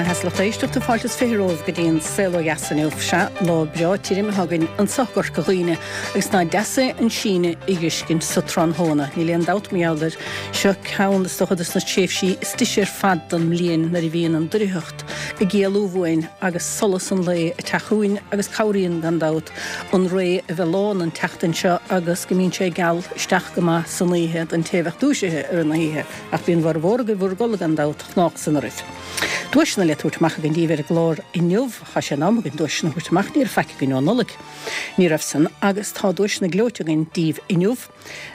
Mhaith a lucht éisteachta, fáilte is 20 romhaibh go dtí an Saol Ó Dheas inniu. Sea, lá breá tirim atá againn anso i gCorca Dhuibhne agus ná deas é an síneadh a dh'fheiscint sa tráthnóna. Níl aon dabht mar gheall air. Seo ceann, is dócha, dos na tréimhsí is deise ar fad don mbliain nuair a bhíonn an doircheacht ag éalú uainn agus solas an lae ag teacht chugainn agus cabhraíonn, gan dabht, an ré a bheith lán an tseachtain seo agus go mbíonn sé geal isteach go maith san oíche don té a bheadh dúisithe i rith na hoíche. Ach bíonn bhformhór agaibh bhur gcodladh gan dabht, chnách san oraibh. Duaiseanna le tabhairt amach againn daoibh ar an gclár inniu. Tá sé in am againn duaiseanna a thabhairt amach, ní raibh faic againn ó Nollaig. Ní raibh san, agus tá duaiseanna gleoite againn daoibh inniu.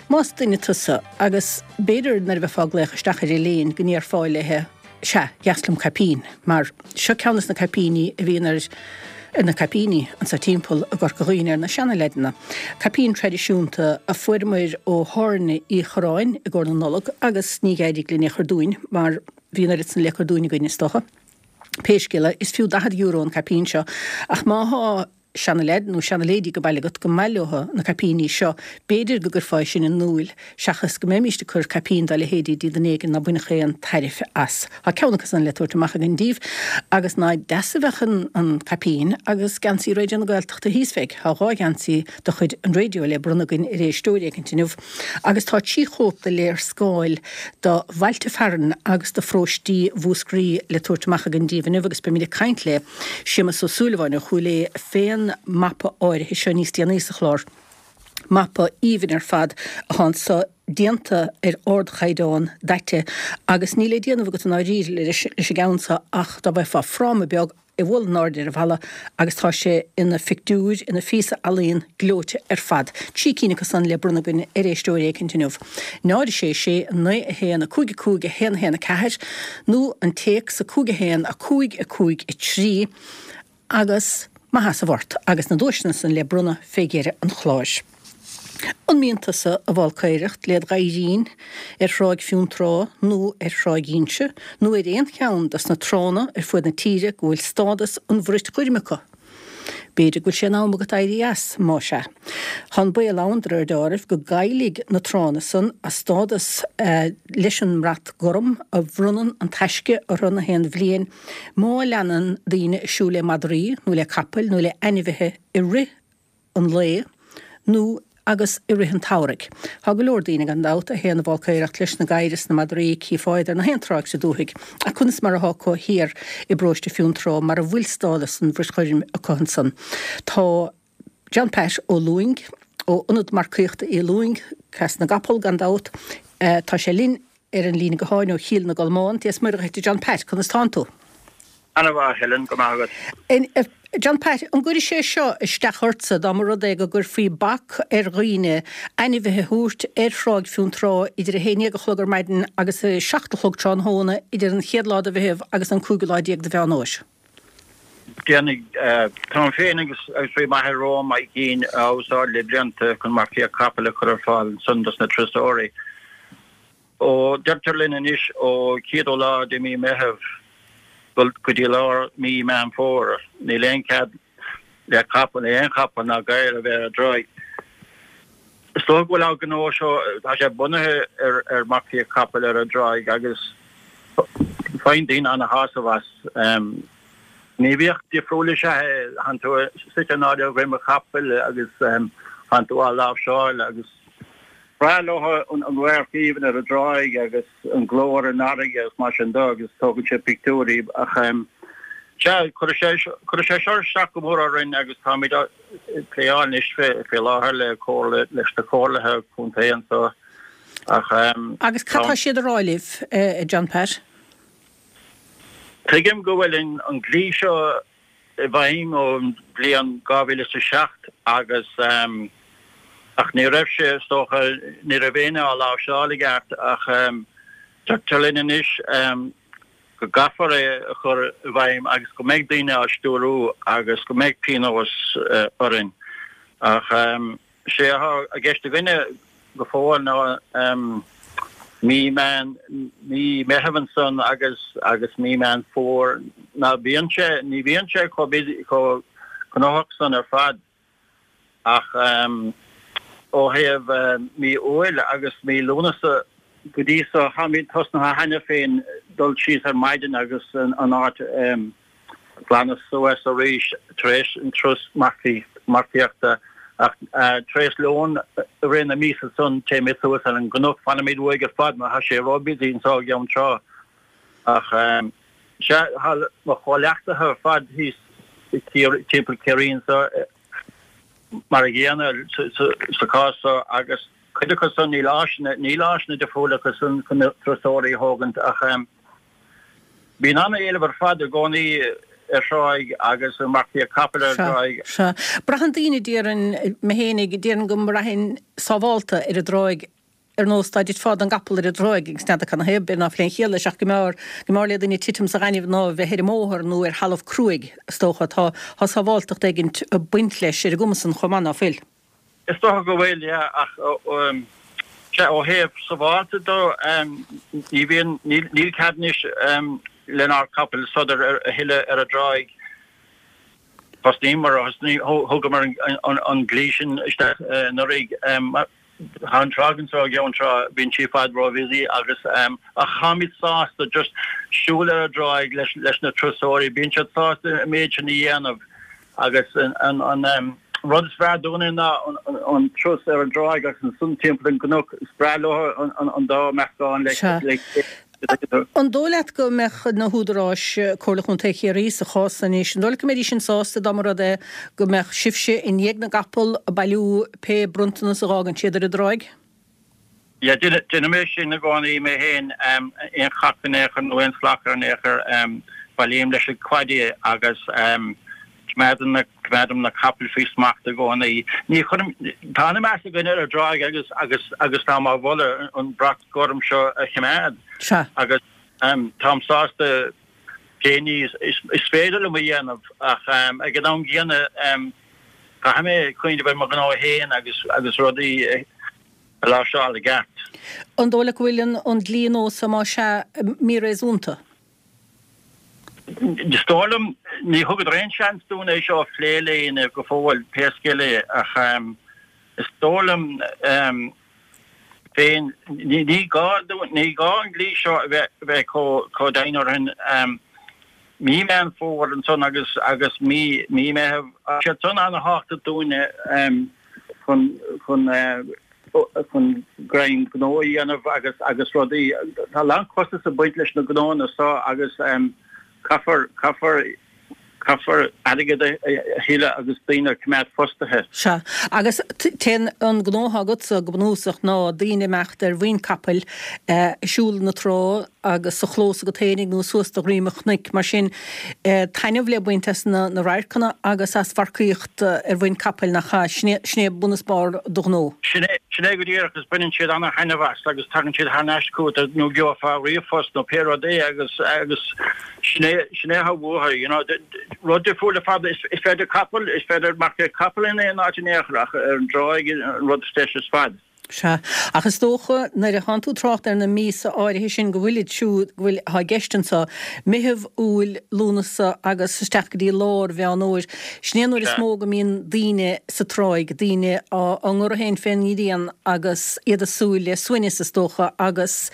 Más duine tusa, agus b'fhéidir nuair a bheifeá ag glaoch isteach ar Elaine go ndéarfá léithe, Sea, dheas liom caipín, mar seo ceann des na caipíní a bhíonn ar ar na caipíní anso timpeall i gCorca Dhuibhne ar na seana-leaideanna. Caipín traidisiúnta a fuaireamair ó Thábhairne Uí Chorráin i gcomhair na Nollag agus ní d'éirigh linn é a chur dúinn mar bhí an oiread san le cur dúinn againn is dócha. Pé scéal é, is fiú €40 an caipín seo ach má thá seana-leaid nó seana-lady ag baile agat go maith leo na caipíní seo, b'fhéidir go gcuirfeá é sin in iúil seachas go mbeimíst ag cur caipín dá leithéidí dtí duine éigin ná bainfeadh aon tairbhe as. Tá ceann acu san le tabhairt amach againn daoibh agus ná deas a bheadh an caipín agus geansaí Raidió na Gaeltachta thíos fé. Tá 2 gheansaí de chuid an raidió le bronnadh againn ar éisteoir éicint inniu agus tá 3 chóip de léarscáil do bhailte fearainn agus do pharóistí Mhúscraí le tabhairt amach againn daoibh inniu agus beimid ag caint le Séamus Ó Súilleabháin ó Chúil Aodha fén mapa áirithe seo níos déanaí sa chlár. Mapa aoibhinn ar fad atá anso, déanta ar ardchaighdeán, daite, agus níl le déanamh agat i ndáiríre leis an gceann seo ach dá bhfaighfeá fráma beag é a bhualadh in airde ar an bhalla agus tá sé ina phictiúr, ina phíosa ealaíon gleoite ar fad. 3 cinn acu san le bronnadh againn ar éisteoir éicint inniu. 0 6 6 9 1 5 5 1 1 4 nó an téacs 5 1 5 5 3 agus maith as a bhfort agus na duaiseanna san le bronnadh fé dheireadh an chláir. An mbíonn tusa a bhfálcaoireacht led ghadhairín ar Thráigh Fionntrá nó ar Thráigh Inse nó ar aon cheann dos na tránna ar fuaid na tíre go bhfuil stádas an bhrait ghoirm acu? B'fhéidir go bhfuil sé in am agat éirí as, má sea. Tá an baol ann, de réir deáraimh, go gcaillfidh na tránna san a stádas leis an mbrat gorm a bhronnann an Taisce orthu na haon bhliain má leanann daoine ag siúl le madraí nó le capaill nó le ainmhithe i rith an lae nó agus i rith an tsamhraidh. Tá go leor daoine, gan dabht, a théann a bhfálcaoireacht leis na gadhair is na madraí, cífeá iad ar na haon tráigh sa dúthaigh. Ach conas mar athá acu thiar i bparóiste Fionntrá mar a bhfuil stádas an bhrait ghoirm acu ansan? Tá John Pat Ó Lúing, ó Ionad Marcaíochta Uí Lúing, Cleas na gCapall, gan dabht, tá sé linn ar an líne gutháin ó Chill na gColmán. Dia is Muire dhuit, a John Pat, conas tánn tú? Ana-mhaith, a Helen, go maith agat. John Pat, an gcuirfidh sé seo isteach ortsa dá mba rud é go gcuirfí bac ar dhaoine ainmhithe a thabhairt ar Thráigh Fionntrá idir 11 a chlog ar maidin agus 7 a chlog tráthnóna idir an chéad lá de Mheitheamh agus an cúigiú lá déag de Mheán Fhómhair? Déanfaidh. Táim féin agus bhí m'athair romham á gcinn á úsáid le blianta chun marcaíocht capaill a chur ar fáil ansan dos na turasóirí. Ó, deirtear linn anois ó chéadú lá de mí Meitheamh go dtí lár mí Meán Fómhair, níl aon chead le capall, le aon chapall ná gadhar a bheith ar an dtráigh. Is dócha go bhfuil ár ngnó seo, tá sé bunaithe ar ar marcaíocht capaill ar an dtráigh agus faigheann daoine ana-shásamh as. Gníomhaíocht difriúil is ea é, tánn tú suite in airde ar dhroim an chapaill agus tánn tú á láimhseáil agus. Breá leo an radharc aoibhinn ar an dtráigh agus an glór an fharraige agus mar sin de agus tógann siad pictiúirí ach sea, cuirfidh sé cuirfidh sé seo isteach go mór orainn agus táimid ag pléáil anois faoi láthair le comhairle leis na comhairlithe contae anseo ach Agus cad tá siad a rá libh, a John Pat? Tuigim go bhfuil an dlí seo i bhfeidhm ón bhliain 2007 agus ach ní raibh sé, is dócha, ní raibh éinne á láimhseáil i gceart ach deirtear linn anois go gcaithfear é a chur i bhfeidhm agus go mbeidh daoine á stiúrú agus go mbeidh pionós orainn ach Sé atá i gceist againne go fóill ná mí Meán, mí Meitheamh ansan agus agus mí Meán Fómhair. Ná bíonn sé, ní bhíonn sé chomh busy, chomh gnóthach san ar fad ach ó thaobh mí Iúil agus mí Lúnasa go dtí so, táimid tosnaithe cheana féin. dul síos ar maidin agus an áit a ghlanadh suas arís tar éis an turas marcaíochta ach tar éis lón i rith na míosa san téimid suas ar an gcnoc, fanaimid uaidh ar fad mar tá sé ró-busy anso i gCeann Trá. Ach sea, tá mo chomhleachtaithe ar fad thíos timpeall Ciarraí anso mar a gcéanna sa chás so agus cuid acu san níl áiseanna, níl áiseanna difriúla acu san chun na turasóirí a thógaint ach bíonn an-éileamh ar fad i gcónaí ar thráigh agus ar marcaíocht capaill ar thráigh. Sea, sea. Braitheann daoine, déarfainn, mé fhéinig, déarfainn go mbraithfinn sábhálta ar an dtráigh ar nós dá dtitfeá den gcapall ar an dtráigh agus n'fheadar cad 'na thaobh, b'fhéidir ná fuil aon chiall leis ach go mb'fhearr, go mb'fhearr le duine titim sa ghaineamh ná a bheith ar an mbóthar nó ar thalamh cruaidh, is dócha. Tá, tá sábháltacht éigint ag baint leis ar an gcuma san chomh maith, ná fuil? Is dócha go bhfuil, yeah, ach sea, ó thaobh sábhálta de, ní bhíonn, níl, níl cead anois lenár gcapaill sodar a thuilleadh ar an dtráigh. Thosnaíomar, thugamar an dlí sin isteach anuraidh. Tá an tráigh anso i gCeann Trá, bíonn sí i bhfad ró-bhusy agus ach táimid sásta just siúl ar an dtráigh leis na turasóirí, bíonn siad sásta an méid sin a dhéanamh agus an rud is fearr dúinne ná an turas ar an dtráigh agus ansan timpeall an gcnoc, is breá leo an dá meascán le chéile. An dóigh leat go mbeadh na húdaráis, Comhairle Chontae Chiarraí sa chás san anois, an dóigh leat go mbeidís sin sásta dá mba rud é go mbeadh sibhse i ndiaidh na gcapall ag bailiú pé bronntanas a dh'fhágann siad ar an dtráigh? Yeah, déanaim é sin i gcónaí mé féin, aon chac in aon chor nó aon slach in aon chor, bailím leis an quaddie é agus coimeádaim na, coimeádaim na capaill faoi smacht i gcónaí. Ní chuirim, tá an-mheas againn ar an dtráigh agus, agus, agus táim á mholadh an brat gorm seo a choimeád. Sea. Agus táim sásta pé ní is féidir liom a dhéanamh ach ag an am gcéanna caithfidh mé cuimhneamh ar mo ghnó féin agus, agus rudaí a láimhseáil i gceart. An dóigh leat go bhfuil an dlí nua so más ea míréasúnta? Is dóigh liom, ní thugadar aon seans dúinn é seo a phlé le éinne go fóill, pé scéal é, ach is dóigh liom féin, ní gá dúinn, ní gá an dlí seo a bheith chomh dian orainn. Mí Meán Fómhair ansan agus agus mí mí Meitheamh, tá siad san ana-thábhachtach dúinne chun chun chun greim gnó a dhéanamh agus agus rudaí. Tá a lán costas ag baint leis na gnóanna seo agus caithfear caithfear caithfear airgead a thuilleadh agus daoine a choimeád fostaithe. Sea. Agus téann an gnó atá agatsa go bunúsach ná daoine imeacht ar mhuin capaill, ag siúl na trá agus sa chlós agat fhéinig nó suas do dhroim an chnoic. Mar sin, taitneamh le baint as na radharcanna agus as mharcaíocht ar mhuin capaill, nach ea? Sin é, sin é bun is barr do ghnó. Sin é, sin é go díreach agus baineann siad ana-thaitneamh as agus tagann siad thar n-ais chugat nó gheofá ríomhphost nó pé rud é agus, agus sin é, sin é atá uathu, you know. Rud difriúil ar fad, is féidir capall, is féidir marcaíocht capall in aon áit in aon chor ach ar an dtráigh an rud is deise ar fad. Sea. Ach is dócha, nuair a thánn tú ag trácht ar na míosa áirithe sin go bhfuilid siúd, go bhfuil, atá i gceist anso, Meitheamh, Iúil, Lúnasa agus isteach go dtí lár Mheán Fhómhair, sin é an uair is mó go mbíonn daoine sa tráigh, daoine á ngoradh féin fén ngrian agus iad ag súil le suaimhneas is dócha agus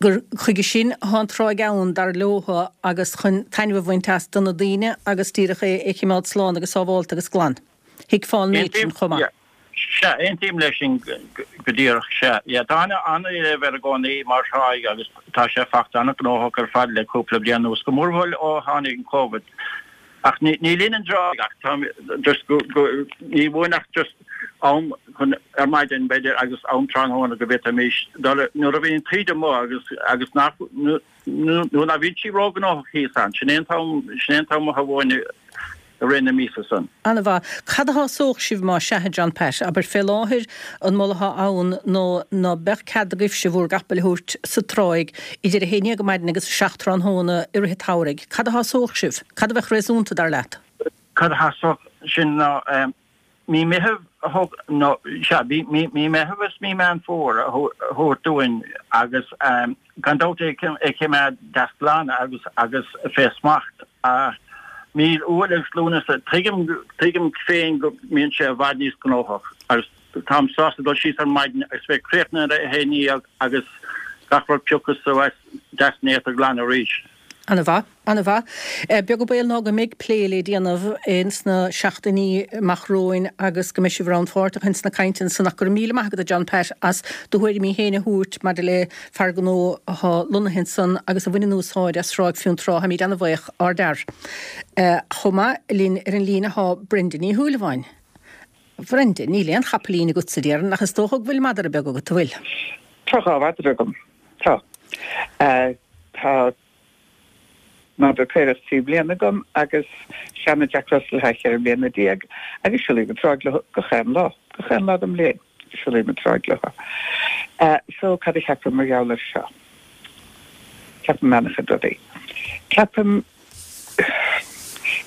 gur chuige sin atá an tráigh ann, dar leotha, agus chun taitneamh a bhaint as do na daoine agus díreach é a chimeád slán agus sábhálta agus glan. Thuigfeá an méid sin chomh maith. Sea, aontaím leis sin go díreach, sea. Yeah, tá an-éileamh air i gcónaí mar thráigh agus tá sé fachta an-ghnóthach ar fad le cúpla bliain anuas, go mórmhór ó tháinig an Covid. Ach ní linn an dtráigh ach tá just go, go, ní uainn ach just am chun ar maidin b'fhéidir agus am tráthnóna go bhféadfaimis dul nuair a bhíonn an taoide amuigh agus, agus nach, Nuair ná bhíonn sí róghnóthach thíos ann, sin é an t-am, sin é an t-am atá uainn i rith na míosa san. Ana-mhaith. Cad a shásódh sibh más ea, a John Pat? Abair, fé láthair, an moladh atá ann ná ná beadh cead agaibhse bhúr gcapaill a thabhairt sa tráigh idir a haon dhéag ar maidin agus a 7 tráthnóna i rith an tsamhraidh. Cad a shásódh sibh? Cad a bheadh réasúnta, dar leat? Cad a shásódh sinn ná Mí Meitheamh a thug, nó, sea, mí, mí, mí Meitheamh is mí Meán Fómhair a thabhairt dúinn agus gan dabht é a choimeád deas glan agus, agus fé smacht. Mí Iúil agus Lúnasa, tuigim, tuigim féin go mbíonn sé i bhfad níos gnóthach agus táim sásta dul síos ar maidin agus bheith críochnaithe ar a 11 agus. Gach rud pioctha suas deas néata glan arís. Ana mhaith. Ana mhaith. Beag an baol ná go mbeidh plé le déanamh ins na seachtainí amach romhainn agus go mbeidh sibh rannpháirteach ins na cainteanna san ach go raibh míle maith agat a John Pat as do thuairimí féin a thabhairt maidir le fear gnó atá lonnaithe ansan agus a bhaineann úsáid as Tráigh Fionntrá. Táimid ana bhaoch, ardfhear. Chomh maith linn ar an líne thá Brenda Ní Shúilleabháin. Bhrenda, níl aon chapaillín agatsa, déarfainn, ach is dócha go bhfuil madra beag agat, an bhfuil? Tá 2 mhadra agam. Tá. Tá madra caorach 3 bliana agam agus seana Jack Russell atá 14 mbliana agus siúlaím an tsráid leo gach aon lá. Gach aon lá den mbliain, siúlaím an tsráid leo. So, cad a cheapaim mar gheall air seo? Ceapaim an-chuid rudaí. Ceapaim,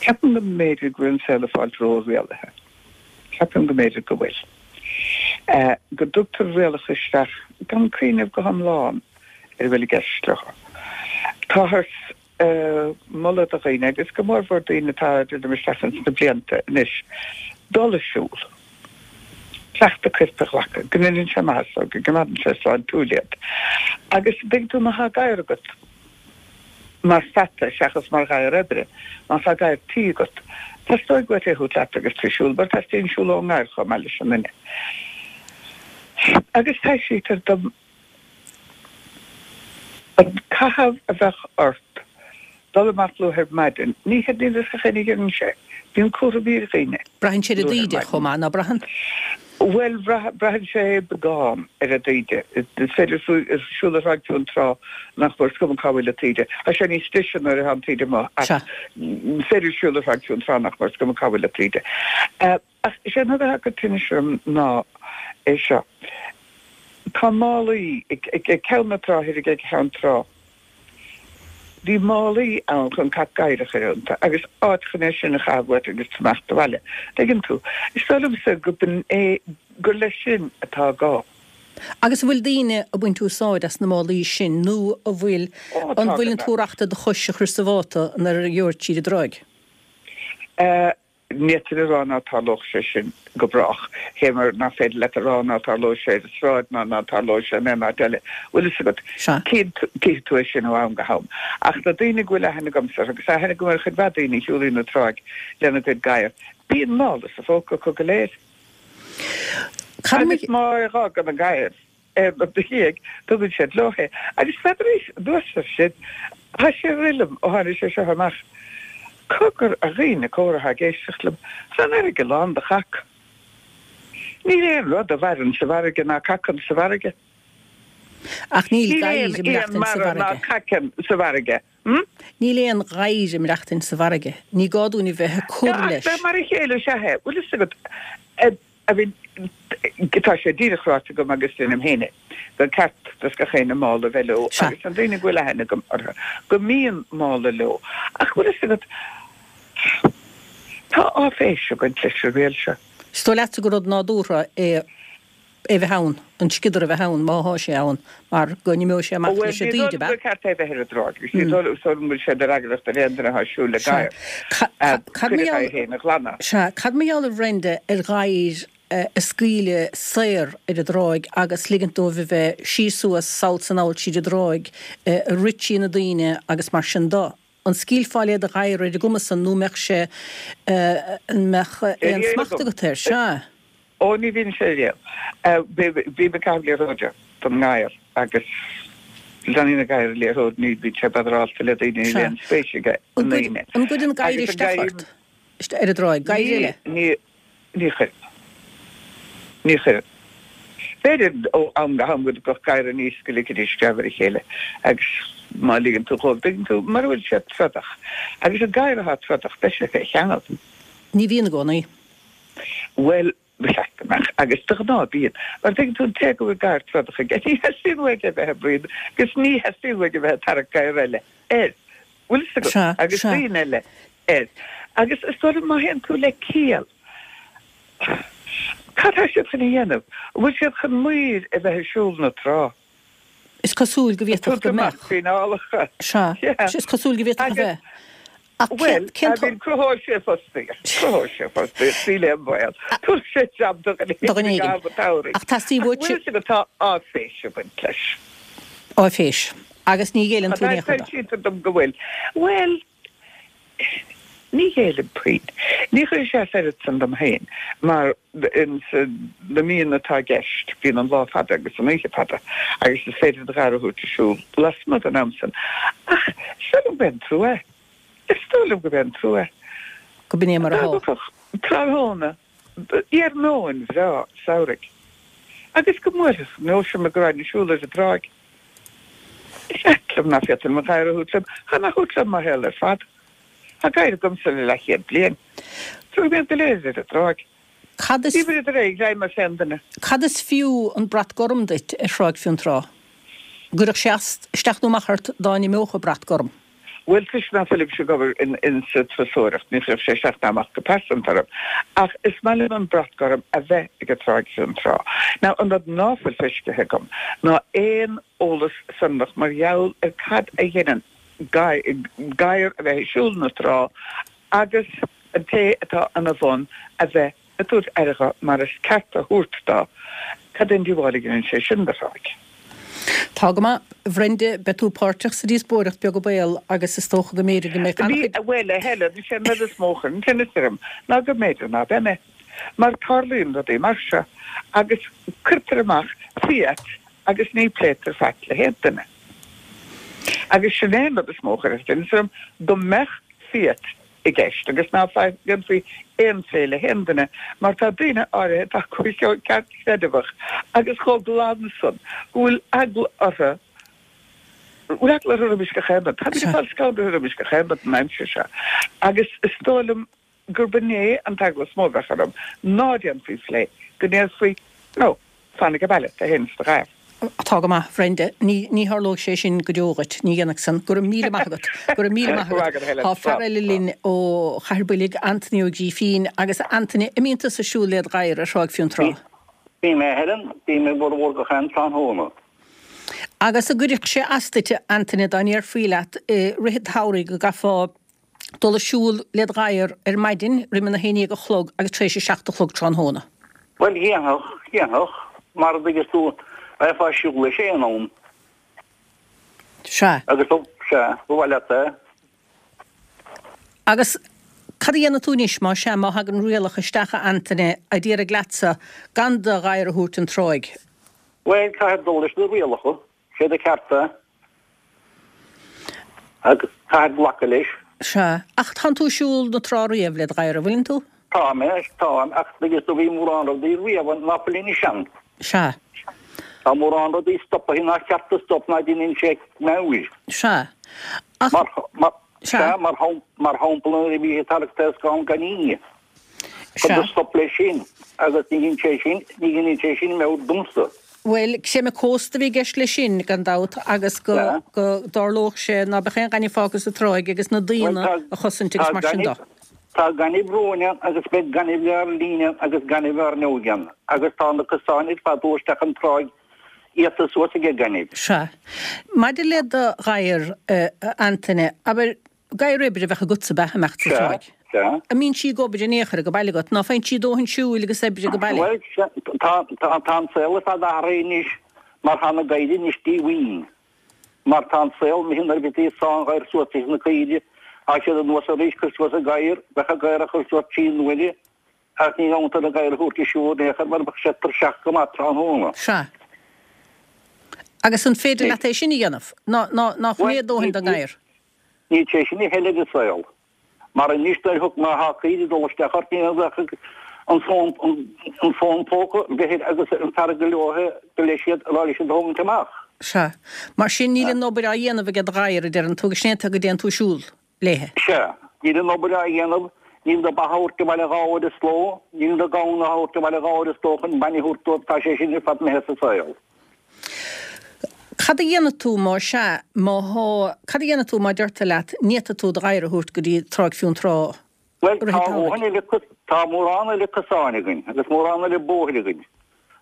ceapaim go mb'fhéidir go bhfuil an saol ag fáilt ró-rialaithe. Ceapaim go mb'fhéidir go bhfuil. Go dtugtar rialacha isteach gan cuimhneamh go hiomlán ar a bhfuil i gceist leo. Táthar ag moladh do dhaoine, agus go mórmhór daoine atá ag druidim isteach ins na blianta anois, dul ag siúl, cleachtadh coirp a ghlacadh, go ndéanann sé maitheas dóibh, go gcoimeádann sé sláintiúil iad. Agus an dtuigeann tú, má tá gadhar agat, mar pheata seachas mar ghadhar oibre. Má tá gadhar tí agat, teastóidh uait é a thabhairt leat agus tú ag siúl, mar teastaíonn siúl ón ngadhar chomh maith leis an nduine. Agus taibhsítear dom an caitheamh a bheadh ort dul amach luath ar maidin, ní hé níl fhios ag éinne a dheineann sé. Bíonn cúraimí ar dhaoine. Braitheann sé ar an dtaoide chomh maith, ná braitheann? Bhuel, braitheann sé beagán ar an dtaoide. Is féidir siúl ar Thráigh Fionntrá nach mór, is cuma cá bhfuil an taoide. Tá sé níos deise nuair atá an taoide amuigh ach is féidir siúl ar Thráigh Fionntrá nach mór, is cuma cá bhfuil an taoide. Ach is é an rud atá ag cur tinnis orm ná é seo, tá málaí ag ceann na trá thoir ag ceann trá. Bhí málaí ann chun cac gadhair a chur iontu agus áit chun é sin a chaitheamh uait agus tú ag imeacht abhaile. Tuigeann tú? Is dóigh liomsa go b'in é, gur leis sin atá gá. Agus an bhfuil daoine ag baint úsáid as na málaí sin nó an bhfuil, Ó, tá an bhfuileann gan tú reachta do chois a chur sa mháta nuair a gheobhair tríd an dtráigh? Ní féidir a rá ná tarlódh sé sin go brách, fé mar nach féidir leat a rá ná tarlóidh sé ar an sráid ná ná tarlóidh sé in aon áit eile. Bhfuil fhios agat, Sea. cífidh tú é sin ó am go ham. Ach na daoine go bhfuil aithne agamsa orthu, agus aithne agam ar chuid mhaith daoine a shiúlaíonn an tráigh lena gcuid gadhar, bíonn mála sa phóca acu go léir. Cad Agus má fhágann an gadhar aon rud ina dhiaidh, tugann siad leo é. Agus n'fheadar, anuas air sin, tá sé ag rith liom ó tháinig sé seo amach, cogar, a dhaoine córa atá ag éisteacht liom, tá an fharraige lán de chac. Níl aon rud a mhaireann sa bhfarraige ná cacann sa bhfarraige. Ach níl Níl gadhair aon ag éan maireachtaint sa mara ná bhfarraige. caiceann sa bhfarraige. Hm? Níl aon ghadhar ag maireachtaint sa bhfarraige. Ní gá dúinn a bheith ag cur Ach leis. mar a chéile is ea é. Bhfuil fhios agat, I mean, tá sé díreach ráite agam agus deinim féin é, gur ceart dos gach éinne mála a bheith leo Sea. agus na daoine go bhfuil aithne agam orthu, go mbíonn mála leo. Ach bhfuil fhios agat, tá áiféis ag baint leis an riail seo. Is dóigh leatsa gur rud nádúrtha é é bheith ann, an sciodar a bheith ann, má thá sé ann, mar go n-imeoidh sé amach Bhuel, leis an ní dtaoide, dóigh ab liom ea? gur ceart é bheith ar an dtráigh agus ní dóigh liom go bhfuil sé de fhreagracht ar aon duine atá ag siúl le Sea. gadhar Cad cuid mar a gheall, gadhair féin a ghlanadh. sea, cad mar gheall a Bhrenda ar ghadhair a scaoileadh saor ar an dtráigh agus ligint dóibh a bheith síos suas, sall 's anall tríd an dtráigh, ag rith trí na daoine agus mar sin do? An scaoilfeá le do ghadhar ar an gcuma san nó mbeadh sé, an mbeadh aon smacht agat air? Sea. Ó, ní bhíonn sé riamh. Bím ag caitheamh liathróide don ngadhar agus leanann an gadhar an liathróid, ní bhíonn sé badarálta le daoine, níl aon spéis aige i ndaoine. An gcuireann gadhair isteach ort ar an dtráigh? Gadhair eile? Ní, ní chuireann. Ní chuireann. B'fhéidir ó am go ham go dtiocfadh gadhar aníos go ligfidís screamh ar a chéile agus má ligeann tú dhóibh, tuigeann tú, mura bhfuil siad trodach. Agus an gadhar atá trodach, beidh sé fé cheangal. Ní bhíonn i gcónaí. Bhuel, ba cheart go mbeadh, agus de ghnáth bíonn. Mar tuigeann tú, an té go bhfuil gadhar trodach aige, ní theastaíonn uaidh é bheith ag bruíon agus ní theastaíonn uaidh a bheith ag tarrac gadhar eile air. Bhfuil fhios agat? Sea, Agus sea. daoine eile air. Agus is dóigh liom má théann tú le ciall, cad tá siad chun a dhéanamh? An bhfuil siad chun maoir a bheith ag siúl na trá? Is cosúil go Ag bhféadfadh tabhairt go amach mbeadh. fíneálacha. Sea, Yeah. is cosúil go bhféadfadh a Agus, bheith. Ach bhuel, cén I mean, cruthóidh sé fostaíocht. Cruthóidh sé fostaíocht, níl aon bhaol. Tabharfaidh sé jab do dhuine Do dhuine éigin i éigin. gcaitheamh an tsamhraidh. Ach teastaíonn Ach uait. bhfuil fhios agat, tá áiféis ag baint leis. Áiféis. Agus ní ghéilleann tú in aon chor dó. Foilsítear dom go bhfuil. Bhuel, ní ghéillim puinn. Ní chuirfidh sé as oiread san dom féin mar ins na míonna atá i gceist bíonn an lá fada agus an oíche fada agus is féidir do ghadhar a thabhairt ag siúl lasmuigh den am san. Ach is dóigh liom go b'é an trua é. Is dóigh liom go b'é an trua é. Go b'in é mar atá. Dá dtiocfadh tráthnóna iarnóin bhreá samhraidh agus go mbuailfeadh nós orm go raghainn ag siúl ar an dtráigh. Is ait liom ná féadfainn mo ghadhar a thabhairt liom. Táim á thabhairt liom mo shaol ar fad. Tá gadhar agamsa le leathchéad bliain. Tabharfaidh mé iad go léir ar an dtráigh. Cad is. Ní bhfuilid réidh le mar féin duine. Cad is fiú an brat gorm duit ar Thráigh Fionntrá? An gcuirfeadh sé as, isteach nó amach ort dá n-imeodh an brat gorm? Bhuel, toisc ná fuilimse ag obair insa turasóireacht, ní chuirfeadh sé isteach ná amach go pearsanta orm. Ach is maith liom an brat gorm a bheith ag an Tráigh Fionntrá. Now, an rud ná fuil feiscithe agam ná aon eolas sonrach mar gheall ar cad a dheineann gadhar a bheith ag siúl na trá agus an té atá ina bhun a bheith ag tabhairt aire dho mar is ceart a thabhairt dó, cad é an díobháil a dheineann sé sin do thráigh? Tá go maith. A Bhrenda, beidh tú páirteach sa díospóireacht, beag an baol, agus is dócha go mb'fhéidir go mbeidh an-chuid. Bhuel, a Helen, is é an rud is mó a chuireann tinneas orm ná go mb'fhéidir ná beidh mé. Mar tarlaíonn rudaí mar seo agus cuirtear amach fiat agus ní pléitear faic le haon duine. Agus sin é an rud is mó a chuirfeadh tinneas orm, go mbeadh fiat i gceist agus ná déanfaí aon phlé le haon duine mar tá daoine áirithe atá chomh ceartchreideamhach agus chomh glan san go bhfuil eagla orthu bhfuil eagla orthu roimis gach aon rud. Táimid ag fáil scanraithe roimis gach aon rud an aimsir seo agus is dóigh liom gurb in é an t-eagla is mó a bheadh orm, ná déanfaí phlé, go ndéarfaí, no, fan age baile, tú fhéin is do ghadhar. Tá go maith, a Bhrenda. Ní, ní tharlóidh sé sin go deo dhuit. Ní dhéanfaidh san. Go raibh míle maith agat. Go raibh míle maith agat. Tá fear eile linn ó Chathair Boilg, Anthony Ó Grífín. Agus a Anthony, an mbíonn tusa ag siúl led ghadhar ar Thráigh Fionntrá? Bím, a Helen. Bím i bhformhór gach aon tráthnóna. Agus an gcuirfeadh sé as duit, a Anthony, dá ndéarfaí leat i rith an tsamhraidh go gcaithfeá dul ag siúl led ghadhar ar maidin roim an 11 a chlog agus tar éis a 7 a chlog tráthnóna. Bhuel, dhéanfadh, dhéanfadh, mar a dtuigeas tú, bheifeá ag siúl leis aon am. Sea. Agus, sea, ba mhaith leat é. Agus cad a dhéanfaidh tú anois, má sea, má thagann rialacha isteach, a Antaine, a déarfaidh leatsa gan do ghadhar a thabhairt an tráigh? Bhuel, caithfear dul leis na rialacha. Sé do cheart é. Agus caithfear glacadh leis. Sea. Ach tánn tú ag siúl na trá riamh led ghadhar, an bhfuileann tú? Tá mé, táim, ach tuigeas tú bhí mórán rudaí riamh ann ná fuil anois ann. Sea. Tá mórán rudaí stopaithe nár cheart a stop ná deineann sé meabhair. Sea. Ach. Mar, mar, sea, mar, mar shampla nuair a bhí ag tarrac taoscán gainimh. Cuireadh stop leis sin agus ní dhein sé sin, ní dheineann sé sin meabhair domsa. Bhuel, creimeadh cósta a bhí i gceist leis sin, gan dabht, agus go, go dtarlódh sé ná beadh aon ghaineamh fágtha sa tráigh agus na daoine a chosaint agus mar sin de. Tá gaineamh romhainn ann agus beidh gaineamh ár linne ann agus gaineamh ár n-óige ann agus tá na cosáin ar fad dul isteach an tráigh iata suas age gaineamh. Sea. Maidir le do ghadhar, a Antaine, abair, Gadhar oibre a bheadh agatsa ab ea, imeacht sa tráigh. Sea. An mbíonn sí ag obair in aon chor age baile agat? Ná faigheann sí dóthain siúil agus oibre age baile? Bhuel, sea, tá, tá, tá an saol ar fad athraithe anois mar tá na gadhair anois díomhaoin. Mar tá an saol imithe nuair a bhítí ag sá an ghadhair suas leis na caoirigh, tá siad anuas arís, cuir suas an gadhar, bheadh an gadhar á chur suas trí n-uaire ach ní ghabhann tú an gadhar a thabhairt ag siúl in aon chor mar bheadh sé tuirseach go maith tráthnóna. Sea. Agus an féidir leat é sin a dhéanamh? Ná, ná, ná choiméad dóthain don ngadhar? Níl sé sin a thuilleadh ar an saol. Mar anois nuair a thug má thá caoire ag dul isteach ort ní bheadh an fón an fón póca bheith agus an fear go leor go leis iad a rá leis iad a thógaint amach. Sea. Mar sin níl an obair á dhéanamh age do ghadhar, a deireann tú, agus sin é an tuige go dtéann tú ag siúl léithe. Sea. Níl an obair á dhéanamh, níl do ba a thabhairt abhaile dhá uair sa ló, níl do gamhain a thabhairt abhaile dhá uair sa ló chun bainne a thabhairt dóibh, tá sé sin ar fad imithe as an saol. Cad a dhéanfaidh tú má sea, má thá, cad a dhéanfaidh tú má deirtear leat ní fhéadfaidh tú do ghadhar a thabhairt go dtí Tráigh Fionntrá Bhuel, i rith an tá tsamhraidh? dhóthain eile, tá mórán eile cosáin againn agus mórán eile bóithre againn.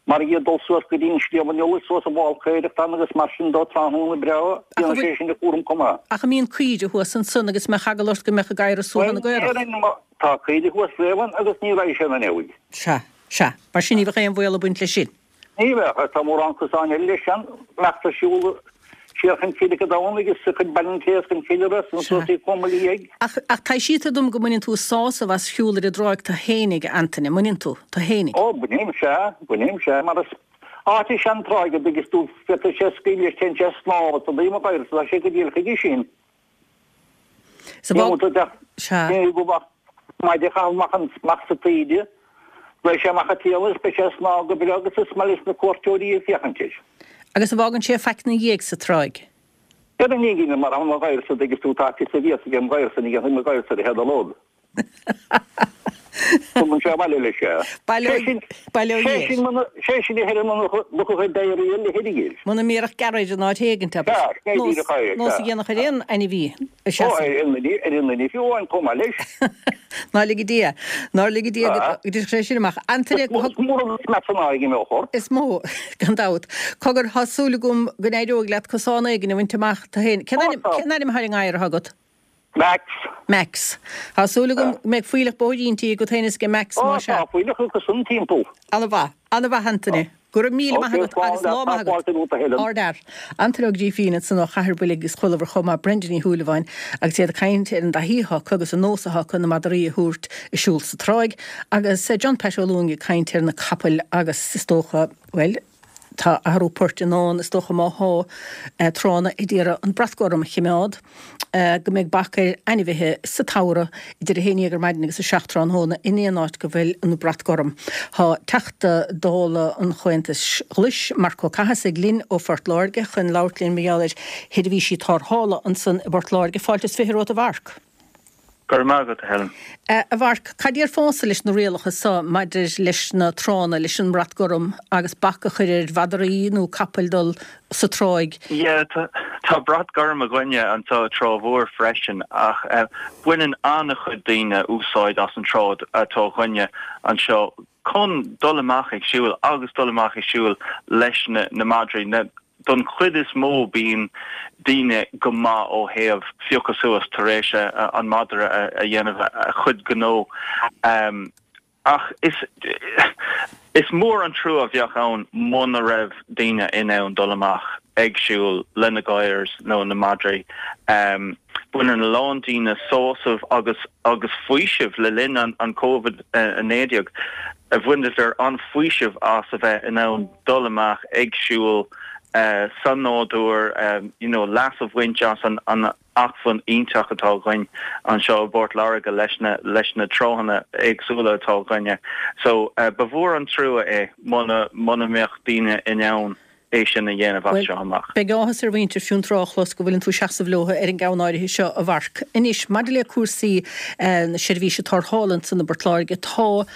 Mar iad dul suas go dtí an Sliabh an Iolair, suas an bhFál Caorach ann agus mar sin dó tráthnóna breá, Ach an déanann bhfuil, sé sin a chúram chomh maith. ach an mbíonn caoire thuas ansan agus mbeadh eagla ort go mbeadh an gadhar ag suaitheadh Bhuel, na gcaorach? déarfainn má tá caoire thuas riamh ann agus ní raghaidh sé ina neamhaidh. Sea, sea. Mar sin ní bheadh aon bhaol ag baint leis sin. Ní bheadh, ach tá mórán cosáin eile leis an mbeacht ar siúl. Siar chun Cille Domhnaigh is chun Baile an Chéas chun Cille Ros an suas í Chomhairle Dhiaidh. Ach, ach taibhsítear dom go mbaineann tú sásamh as shiúl ar an dtráigh tú fhéinig, a Antaine, an mbaineann tú? Tú fhéinig? Ó, bainim, sea, bainim, sea, mar is áit í an tráigh a dtuigeas tú, féadfaidh sé scaoileadh leis, téann sé ag snámh is an taobh amuigh tá sé go diail chuige sin. Sa bhfág, sea. Ní go mbeadh maide a chaitheamh amach an, amach sa taoide, beidh sé amach ag triall is beidh sé ag snámh go breá agus is maith leis na cuairteoirí ag féachaint air. Agus an bhfágann sé faic 'na dhiaidh sa tráigh? Ar an ngine mar an ghairsa dtuigeas tú tá fios a bhíos ag an ghairsa ní dhéanfaidh mo ghairsa a théad a lod. Tugann sé abhaile leis é. Baileoidh, baileoidh Sé sin muna, sé sin a thuilleadh muna luchadh ag éirí le hIrgil. Muna mbéarfadh gearradh ar an áit éigint, abair. Sea, sin é díreach é, Nós a dhéanfadh ar aon ainmhí a Ó, seasamh. ar aon duine, ar aon duine fiú amháin chomh maith leis. Ná lige Dia, nár lige Dia go dtiocfadh sé sin amach. Antaine, Is mór an smeat san aghaidh a mbeadh ort. Is mó, gan dabht. Cogar, tá súil agam go n-éireoidh leat cosán éigin a bhaint amach tú féin. Cén ainm, cén ainm atá ar an ngadhar atá agat? Max. Max. Tá súil agam go mbeidh fuílleach bóithrínte agat féin is ag Max, Ó, más ea. tá fuílleach acu san timpeall. Ana-mhaith. Ana-mhaith, Antaine. Go raibh míle maith agat agus lá maith agat. Ardfhear. Antaine Ó Grífín ansan ó Chathair Bhuilg agus chualamar chomh maith Brenda Ní Shúilleabháin agus iad ag caint ar an dtaithí atá acu agus an nós atá acu na madraí a thabhairt ag siúl sa tráigh agus John Pat Ó Lúing ag caint ar na capaill agus is dócha, bhuel, Tá athrú poirt i ndán, is dócha, má thá tránna ag iarraidh an brat gorm a chimeád, go mbeidh bac ar ainmhithe sa tsamhradh idir 11 ar maidin agus 7 tráthnóna in aon áit go bhfuil an brat gorm. Tá Teachta Dála an Chomhaontais Ghlais, Marc Ó Cathasaigh, linn ó Phort Láirge chun labhairt linn mar gheall ar sheirbhísí tarrthála ansan i bPort Láirge. Fáilte is 20 romhat a Mharc. Go raibh maith agat, a Helen. A Mharc, cad déarfása leis na rialacha so maidir leis na tránna, leis an mbrat gorm agus bac a chur ar mhadraí nó capaill dul sa tráigh? Yeah, tá brat gorm againne anseo i Trá Mhór freisin ach baineann an-chuid daoine úsáid as an trá atá againne anseo chun dul amach ag siúl agus dul amach ag siúl leis na madraí. Don chuid is mó bíonn daoine go maith ó thaobh phiocadh suas tar éis an madra a dhéanamh a chuid gnó. Ach is is mór an trua a bheadh ann muna raibh daoine in ann dul amach ag siúl lena gadhair nó na madraí. Baineann a lán daoine sásamh agus agus faoiseamh le linn an Covid-19. Bhaineadar an-fhaoiseamh as a bheith in ann dul amach ag siúl sa nádúr, you know leas a bhaint as an acmhainn iontach atá againn anseo i bPort Láirge leis na leis na tránna éagsúla atá againne. So ba mhór an trua é muna muna mbeadh daoine in ann é sin a dhéanamh as seo amach. Beidh áthas ar mhuintir Fionntrá a chlos go bhfuileann tú ag seasamh leo ar an gceann áirithe seo, a Mharc. Anois, maidir le cúrsaí na seirbhíse tarrthála ansan i bPort Láirge, tá,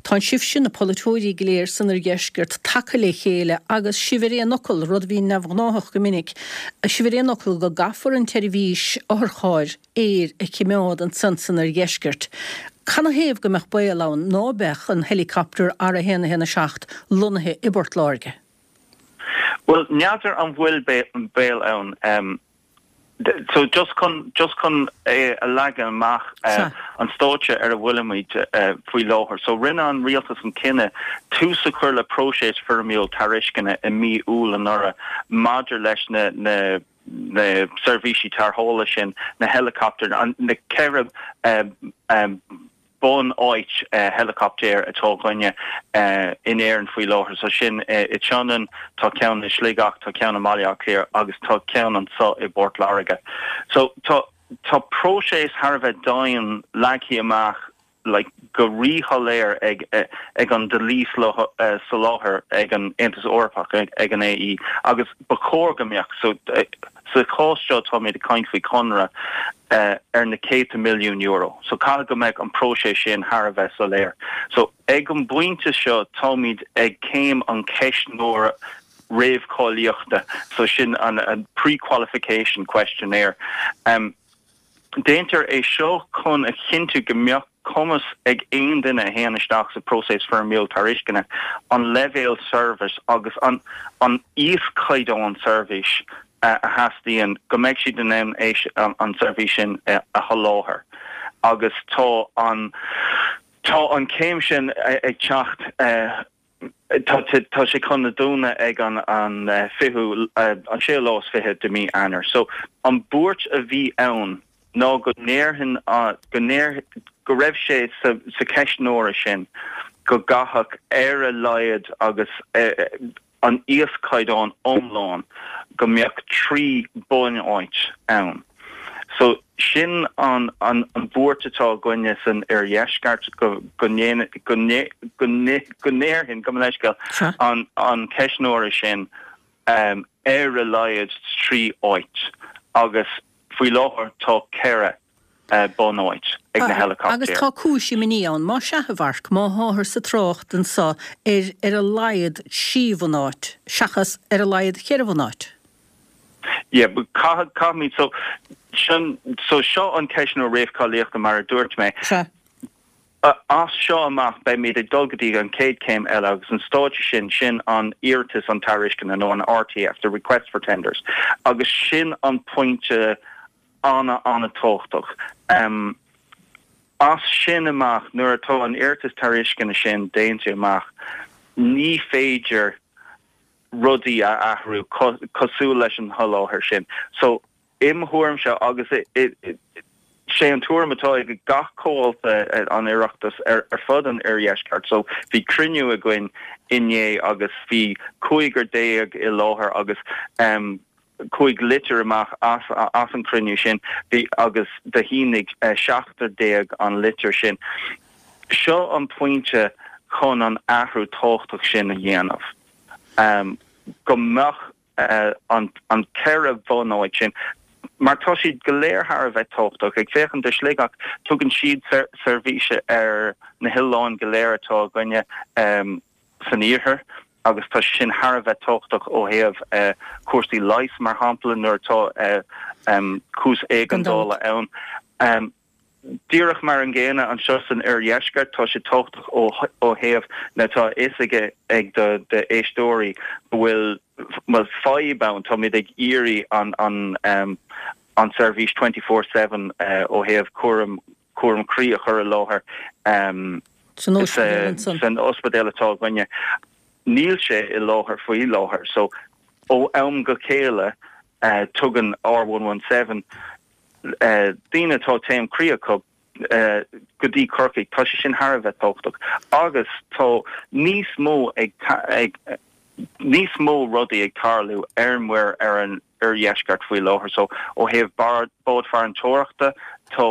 tánn sibhse, na polaiteoirí go léir san oirdheisceart, tagtha le chéile agus sibh ar aon fhocal, rud a bhíonn neamhghnáthach go minic, sibh ar aon fhocal go gcaithfear an tseirbhís otharchairr aeir a chimeád ansan san oirdheisceart. Canathaobh go mbeadh baol ann ná beadh an helicopter R117 lonnaithe i bPort Láirge? Bhuel, n'fheadar an bhfuil baol ann. So just chun, just chun é a leagan amach, an stáitse ar a bhfuilimid faoi láthair. So rinne an rialtas an cinneadh tús a chur le próiseas foirmiúil tairisceana i mí Iúil anuraidh maidir leis na, na, na seirbhísí tarrthála sin, na helicopter, na 4 bunáit helicopter atá againne in Éirinn faoi láthair. So sin i Sionainn, tá ceann i Sligeach, tá ceann i mBaile Átha Cliath agus tá ceann anseo i bPort Láirge. So tá tá próiseas thar a bheith dian leagtha amach like go ríshoiléir ag ag an dlí soláthair ag an Aontas Eorpach, ag an AE agus ba chóir go mbeadh. So Sa chás seo táimid ag caint faoi chonradh ar na céadta milliún euro. So caithfidh go mbeadh an próiseas sin thar a bheith soiléir. So ag an bpointe seo táimid ag céim an cheistneora réamhcháilíochta, so sin an pre-qualification questionnaire. Déantar é seo chun a chinntiú go mbeadh cumas ag aon duine a théann isteach sa próiseas foirmiúil tairisceana an leibhéal seirbhís agus an an íoschaighdeán seirbhís a theastaíonn, go mbeidh siad in ann é an tseirbhís sin a sholáthar. Agus tá an tá an chéim sin ag teacht. Tá tá sé chun a dúnadh ag an an fichiú an séú lá is 20 de mí Eanáir. So an buairt a bhí ann ná go ndéarfainn go ndéar go raibh sé sa sa ceistneoir sin go gcaithfeadh ar a laghad agus an íoschaighdeán iomlán go mbeadh 3 bunáit ann. So sin an an an bhuairt atá againne san oirdheisceart go go ndéan go go go ndéarfainn gabh mo leithscéal an an ceistneoir sin um ar a laghad 3 áit agus faoi láthair tá 4 bunáit ag na héileacaptair. Agus tá cúis imní ann, más ea, a Mharc, má tháthar sa trácht anso ar ar a laghad trí bhunáit, seachas ar a laghad cheithre bhunáit. Yeah, but caithfidh, caithfimid, so, sin, so seo an ceistneoir réamhcháilíochta mar a dúirt mé. Sea. As seo amach beimid ag dul go dtí an chéad chéim eile agus an stáitse sin, sin an iarratas an tairisceana nó an RTF, the request for tenders, agus sin an pointe an-an-tábhachtach. As sin amach, nuair atá an iarratas tairisceana sin déanta amach, ní féidir rudaí a athrú cosúil leis an sholáthar sin. So, im thuairimse, agus sé an tuairim atá ag gach comhalta an Oireachtais ar fud an oirdheisceart, so bhí cruinniú againn inné agus bhí cúigear déag i láthair agus chuaigh litir amach as as an chruinniú sin bhí agus do shínigh seachtar déag an litir sin. Seo an pointe chun an athrú tábhachtach sin a dhéanamh, go mbeadh an an 4 bhunáit sin, mar tá siad go léir thar a bheith tábhachtach. Ag féachaint do Shligeach, tugann siad seirbhís ar na hoileáin go léir atá againne san iarthar agus tá sé sin thar a bheith tábhachtach ó thaobh cúrsaí leighis, mar shampla, nuair atá cúis éigeandála ann. Díreach mar an gcéanna anseo san oirdheisceart, tá sé tábhachtach ó thaobh na, tá a fhios ag ag do d'éisteoirí go bhfuil, bhuel, fadhb ann, táimid ag iarraidh an an an seirbhís 24/7 ó thaobh cúram cúram croí a chur i láthair San ospidéal ansan. san ospidéal atá againne. Níl sé i láthair faoi láthair so ó am go chéile tugann R117 daoine atá taom croí acu go dtí Corcaigh, tá sé sin thar a bheith tábhachtach agus tá níos mó ag ag níos mó rudaí ag tarlú ar muir ar an oirdheisceart faoi láthair so ó thaobh bád farantóireachta tá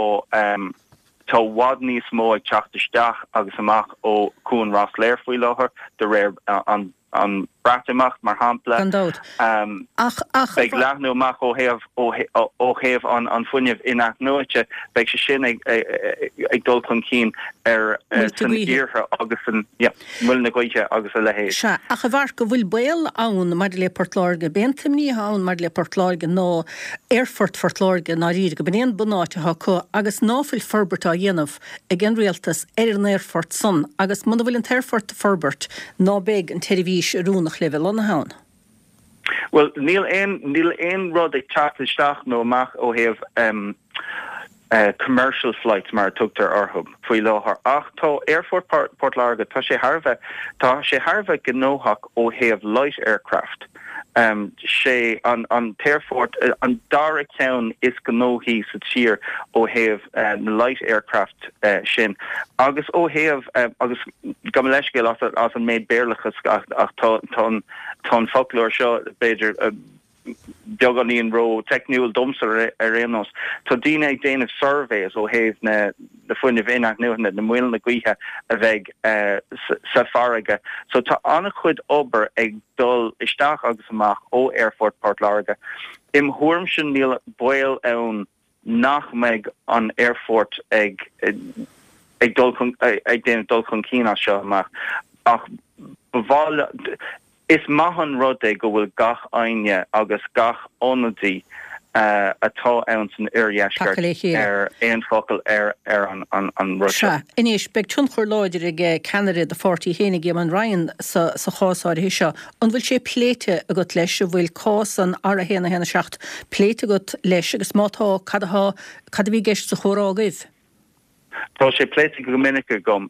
tá i bhfad níos mó ag teacht isteach agus amach ó Chuan Ros Láir faoi láthair de réir an an Breatimeacht, mar shampla. Gan dabht. Ach, ach. Beidh leathnú amach ó thaobh, ó thaobh an fuinnimh in-athnuaite, beidh sé sin ag, ag dul chun cinn ar, san iarthar agus san, yeah, muileann na gaoithe agus a leithéid. Sea, ach a Mharc, an bhfuil baol ann maidir le Port Láirge, b'é an t-imní atá ann maidir le Port Láirge ná Aerfort Phort Láirge i ndáiríre, go b'in é an bunáit atá acu agus ná fuil forbairt á dhéanamh ag an rialtas ar an aerfort san agus muna bhfuil an t-aerfort a forbairt ná beidh an tseirbhís oiriúnach le bheith lonnaithe ann. Bhuel, níl aon, níl aon rud ag teacht isteach nó amach ó thaobh em commercial flights mar a tugtar orthu faoi láthair ach tá Aerfort Port Láirge, tá sé thar a bheith, tá sé thar a bheith gnóthach ó thaobh light aircraft. Sé an t-aerfort an dara ceann is gnóthaí sa tír ó thaobh na light aircraft sin agus ó thaobh, agus gabh mo leithscéal as an méid Béarlachas ach tá an foclóir seo b'fhéidir beagáinín ró-teicniúil domsa ar aon nós. Tá daoine ag déanamh surveys ó thaobh na fuinnimh in-athnuaite, na muileanna gaoithe a bheidh sa farraige. So tá an-chuid obair ag dul isteach agus amach ó Aerfort Port Láirge. Im thuairimse níl baol ann nach mbeidh an aerfort ag ag dul chun ag déanamh dul chun cinn as seo amach ach ba mhaith is maith an rud é go bhfuil gach éinne agus gach ionadaí atá ann san oirdheisceart ar aon focal ar ar an an rud seo. Sea. Anois, beidh tionchar láidir ag ceannaire do pháirtí fhéinig, Eamon Ryan, sa sa chás áirithe seo. An bhfuil sé pléite agat leis? An bhfuil cás an R1 1 7 pléite agat leis agus má tá, cad atá, cad a bhí i gceist sa chomhrá agaibh? Tá sé pléite go minic agam,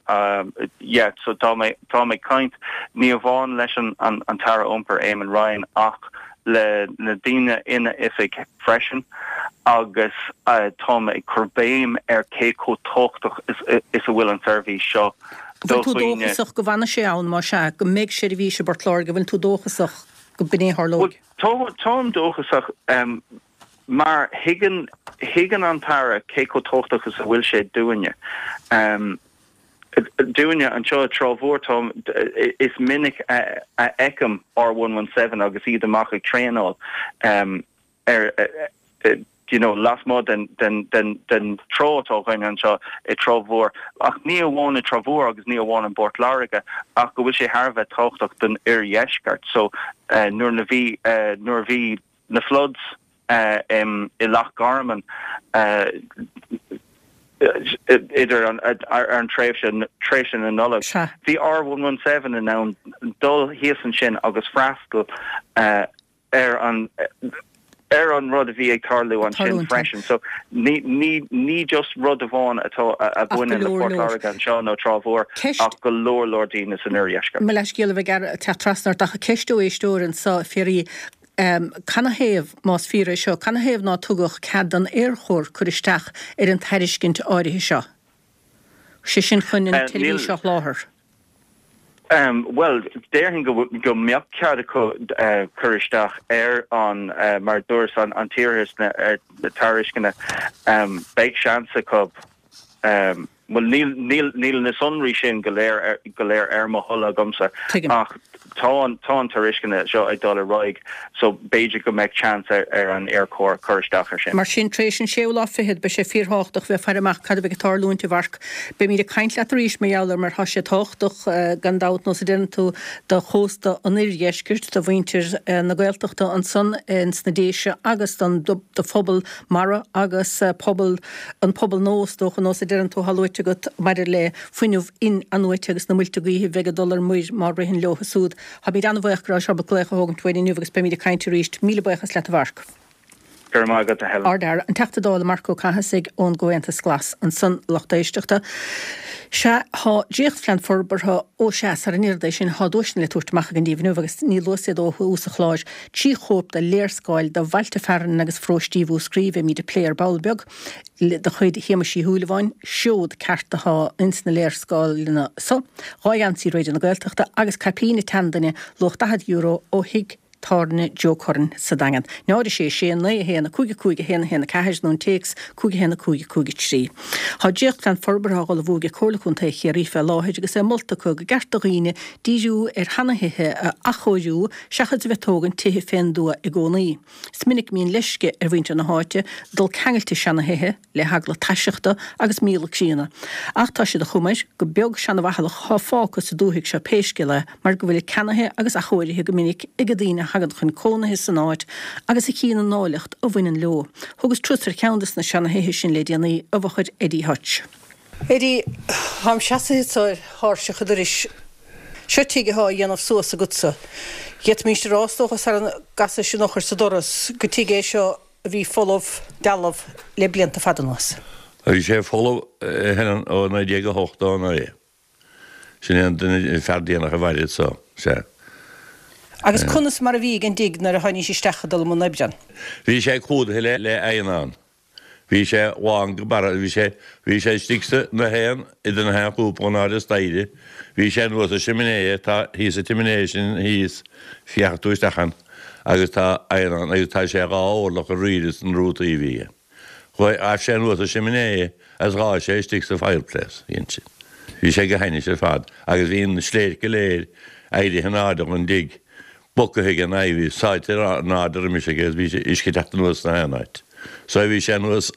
yeah, so tá mé, táim ag caint ní amháin leis an, an, an tAire Iompair, Eamon Ryan, ach le na daoine ina oifig freisin agus táim ag cur béim ar cé chomh tábhachtach is, is a bhfuil an tseirbhís seo do Bhfuil tú dhaoine. dóchasach go bhfanfaidh sé ann, más ea, go mbeidh seirbhís i bPort Láirge, bhfuil tú dóchasach go b'in é a tharlóidh? Bhuel, táim dóchasach. Mar thuigeann, thuigeann an tAire cé chomh tábhachtach is a bhfuil sé dúinne. Dúinne anseo i dTrá Mhór, tá, is minic a fheicim R117 agus iad amach ag traenáil ar, you know, lasmuigh den, den, den, den trá atá againn anseo i dTrá Mhór. Ach ní amháin i dTrá Mhór agus ní amháin i bPort Láirge ach go bhfuil sé thar a bheith tábhachtach don oirdheisceart. So, nuair a bhí, nuair a bhí na floods i Loch Garman idir an ar an tréimhse tréimhse na Nollag. Bhí R117 in ann dul thíos ansin agus freastal ar an ar an rud a bhí ag tarlú ansin freisin. So ní ní ní just rud amháin atá a bhaineann le Port Láirge anseo nó Trá Mhór ach go leor leor daoine san oirdheisceart. Mo leithscéal a bheith ag teacht trasna ort ach ceist ó éisteoir anseo, a Phiaraí. Canathaobh, más fíor é seo, canathaobh ná tugadh cead don Aerchór cur isteach ar an tairiscint áirithe seo? Sé sin chun an tseirbhís seo a sholáthar. Bhuel, déarfainn go mbeadh cead acu cur isteach ar an, mar a dúras, an tairisceana. Beidh seans acu. Bhuel, níl, níl, níl na sonraí sin go léir, go léir ar mo thoil agamsa Tuigim. ach tá an, tá an tairisceana seo ag dul ar aghaidh so b'fhéidir go mbeadh chance ar, ar an Aerchór cur isteach ar sin. Mar sin, tar éis an séú lá fichead, beidh sé fíorthábhachtach bheith ag faire amach cad a bheidh ag tarlúint, a Mharc. Beimíd ag caint leat arís mar gheall air mar tá sé tábhachtach, gan dabht, nós a deireann tú, do chósta an oirdheiscirt, do mhuintir na Gaeltachta ansan ins na Déise agus don, do phobal mara agus pobal an pobal nua, is dócha, nós a deireann tú, atá luaite agat maidir le fuinneamh in-athnuaite agus na muilte gaoithe a bheidh ag dul ar muir má ritheann leo siúd. Táimid an-bhaoch go rabhais ábalta glaoch a thógaint uainn inniu agus beimid ag caint arís. Míle buíochas leat a Mharc. Go raibh maith agat a Helen. Ardfhear, an Teachta Dála Marc Ó Cathasaigh ón gComhaontas Glas ansan, lucht éisteachta. Sea, tá dréachtphlean forbartha, ó sea, sara ndéarfad é sin, tá duaiseanna le tabhairt amach againn daoibh inniu agus ní luas iad ó thús an chláir. 3 chóip de léarscáil de bhailte fearainn agus pharóistí Mhúscraí a bheimid ag plé ar ball beag, de chuid Shéamais Uí Shúilleabháin, seod ceart atá ins na léarscáileanna so, 2 gheansaí Raidió na Gaeltachta agus caipín an tseanduine luach €40 ó thigh tábhairne Joe Curran sa Daingean. 0 6 6 9 1 5 5 1 1 4 nó an téacs 5 1 5 5 3. Tá dréachtphlean forbartha á ullmhú ag Comhairle Contae Chiarraí fé láthair agus é molta acu go gceart do dhaoine díriú ar sheanathithe a athchóiriú seachas a bheith ag tógaint tithe fén dtuath i gcónaí. Is minic a mbíonn leisce ar mhuintir na háite dul ceangailte seanathithe le heagla taiseachta agus míola críonna. Ach tá sé de chuma air gur beag seanabhathalach atá fágtha sa dúthaigh seo pé scéal é mar go bhfuilid ceannaithe agus athchóirithe go minic ag na daoine a thagann chun cónaithe san áit agus a chíonn an áilleacht a bhaineann leo. Thugas turas ar cheann de na seanathithe sin le déanaí i bhfochair Eddie Hutch. Eddie, táim seasaithe anso ar thairseach an dorais. Seo tigh athá á dhéanamh suas agatsa. D'fhéadfaimíst a rá, is dócha, sara gcasais an eochair sa doras, gur tigh é seo a bhí folamh, dealbh, le blianta fada anuas. Bhí sé folamh, a Helen, ó 1989. Sin é an duine, fear déanach a mhair anso, sea. Agus conas mar a bhí ag an dtigh nuair a tháinís isteach ag dul i mbun oibre ann? Bhí sé clúdaithe le eidhneán. Bhí sé lán go barra, bhí sé, bhí sé istigh sa, na haon, idir na haon chúpla in airde staighre, bhí sé anuas sa siminé, tá, thíos sa tsimisné sin thíos, féachfaidh tú isteach ann agus tá eidhneán agus tá sé dhá orlach ar aoirde san rútaí a bhí aige. Chuaigh, ghabh sé anuas sa tsimisné agus ghabh sé istigh sa fireplace, dhein sin. Bhí sé go hainnis ar fad agus bhí an sléirt go léir éirithe in airde gon dtigh bogtha ag an aghaidh, bhí sáite in airde roimis aige agus bhí uisce ag teacht anuas sna haon áit. So bhí sé anuas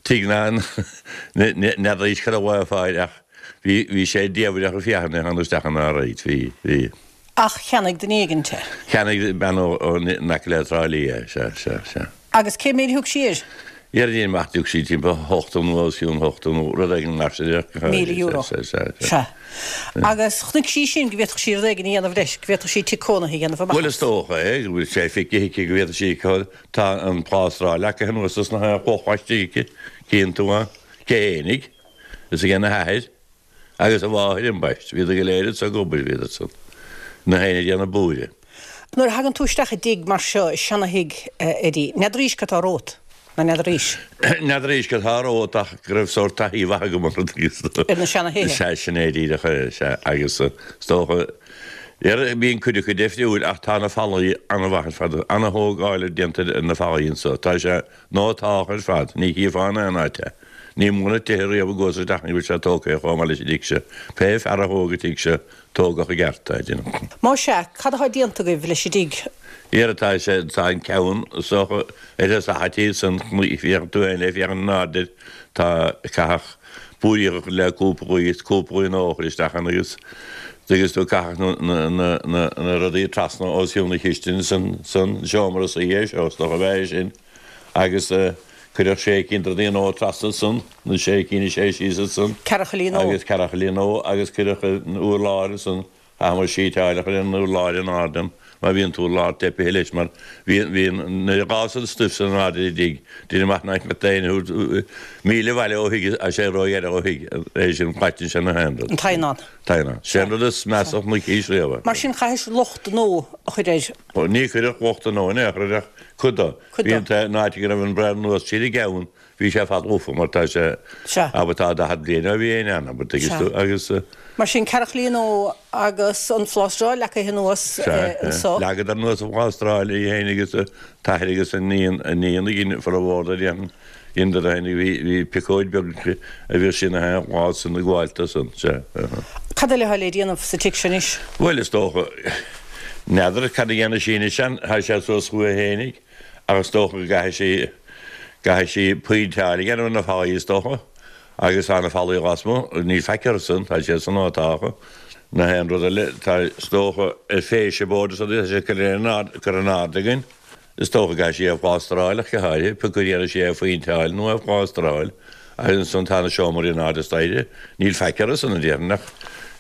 tigh na n'fheadar cá raibh a fáil ach bhí bhí sé diamhrach ag féachaint ar tháinig isteach ina áit. Bhí, bhí. Ach cheannaigh duine éigint é. Cheannaigh bean ó ó in aice le Trá Lí é, sea, sea, sea. Agus cé méid a thug sí air? Dhéarfainn amach thug sí timpeall 80 nó os cionn 80 nó rud éigin mar sin. €1,000. Sea, sea, sea. Sea. Agus chonaic sí sin go bhféadfadh sí rud éigin a dhéanamh leis, go bhféadfadh sí tigh cónaithe a dhéanamh amach as. Bhuel is dócha é, go bhfuil sé feicthe aici go bhféadfadh sí, tá an plástráil leagtha anuas sna clocha istigh aici, cíonn tú ann, cé fhéinig. Is ag a hathair agus a mháthair ambaist. Bhíodar go léir anso ag obair, bhíodar san. Na héinne ag déanamh búire. Nuair a thagann tú isteach i dtigh mar seo, i seana-thigh, a Eddie, n'fheadaraís cad tá romhat, ná n'fheadaraís? N'fheadaraís cad tá romhat ach go raibh sórt taithí mhaith agam orthu agus. Ar na seana-thithe? Sea, sin é díreach é, sea. Agus is dócha, bíonn cuid acu deifriúil ach tá na fallaí an-mhaith ar fad, an-thógáil déanta ar na fallaí anso. Tá sé nótáltha ar fad, ní chífeá in aon áit é. Ní mó na tithe riamh i gcuas isteach ní bhfuil sé tógtha chomh maith leis an dtigh seo. Pé fear a thóg an tigh seo, tógadh i gceart é, déanaim. Más ea, cad atá déanta agaibh leis an dtigh? Dhera tá sé, tá an ceann is dócha ar thosach an tí san, féachann tú féin le féachaint in airde air, tá caitheadh búiríoch a chur le cúpla gaoth is cúpla gaoth nua a chur isteach ann agus agus tú caitheadh na, na, na, na rudaí trasna os cionn na cistine san, san seomra suí é seo, is dócha a bheith é sin. Agus cuireadh sé cinn de rudaí nua trasna ansan, na sé cinn is sé síos ansan. Ceathrachaillí nua. Agus ceathrachaillí nua agus cuireadh an urlár ansan, chaitheamar síteáil a chur ar an urlár in airde ann, mar bhí an t-urlár teipithe leis mar bhí, bhí an, nuair a ghabhas an stuif san in airde ar an dtigh, deinim amach nach mbeadh aon míle abhaile ó thigh, tá sé róghearr ó thigh, é sin, caiteann sé na haon rud. An t-adhnán. T-adhnán. Sé an rud is measa a chonaicis riamh. Mar sin chaithis lucht nua a chur air. Ní cuireadh lucht nua in aon chor air ach cuid dó. Cuid Bhí dó. an t-aon áit go raibh an braon anuas tríd an gceann, bhí sé fad lofa mar tá sé, Sea. abair tá 40 bliain ó bhí éinne ann, abair, tuigeann Sea. tú, agus. Mar sin ceathrachaillí nua agus an phlástráil leagtha anuas Sea, anso. Leagadar anuas an phlástráil í féin agus a t-athair agus a iníon, a iníon a dhein formhór de dhein. Dheineadar féin bhí, bhí piocóid beag aici a bhíodh sí ina haon lá san ag gabháil do san, sea. Cad eile atá le déanamh sa tigh seo anois? Bhuel, is dócha, n'fheadar cad a dhéanfaidh sí anois ann, tá sé suas chuici fhéinig ach is dócha go gcaithfidh sí, gcaithfidh sí péinteáil a dhéanamh ar na fallaí is dócha agus tá na fallaí lasmuigh, níl faic orthu san, tá siad san áit Na haon rud eile, tá, is dócha, ar fascia board is rudaí, tá sé curtha in airde, curtha in airde againn. Is dócha go gcaithfidh sí é a phlástráil ach go háirithe, pé acu a dhéanfaidh sí é a phéinteáil nó é a phlástráil. Agus ansan tá na seomraí in airde staighre. Níl faic orthu san, a déarfainn, ach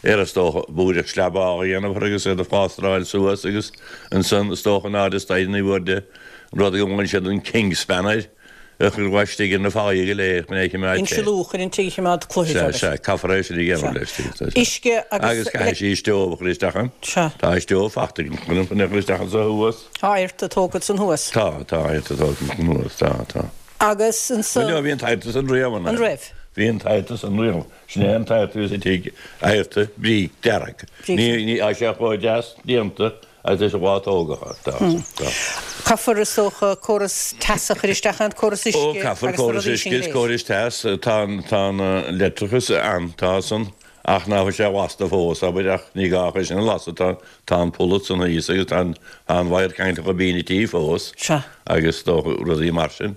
ar is dócha búireach slabála a dhéanamh orthu agus iad a phlástráil suas agus ansan is dócha in airde staighre ní bhfuair de an rud go nglaonn siad an kingspan air. a chur laistigh ar na fallaí go léir chun é a choimeád te. Insealú chun an tigh a choimeád cloiche Sea, sea, caithfear é sin a dhéanamh leis, sea, sea. Uisce agus. Agus caithfidh sí stove a chur isteach ann. Sea. Tá stove fachta chun chun é a chur isteach anso thuas. Tá adharta tógtha ansan thuas. Tá, tá adharta tógtha ansan thuas, tá, tá. Agus ansan. Bhuel, bhí an t-adharta san riamh ann. An raibh? Bhí an t-adharta san riamh. Sin é an t-adharta a bhí sa tigh, adharta bríce dearg. Bríce. Ní, ní, tá sé chomh deas déanta Agus leis an lá tógadh tá. Caithfear, is dócha, córas teasa a chur isteach ann, córas uisce Ó, caithfear agus na córas rudaí uisce sin go is léir. córas teas, tá an, tá an leictreachas ann, tá san, ach ná fuil sé lasta fós, abair, ach ní gá é sin a lasadh, tá, tá an polla san thíos agus tá an, tá an wire ceangailte go binn an tí fós. Sea. Agus is dócha rudaí mar sin.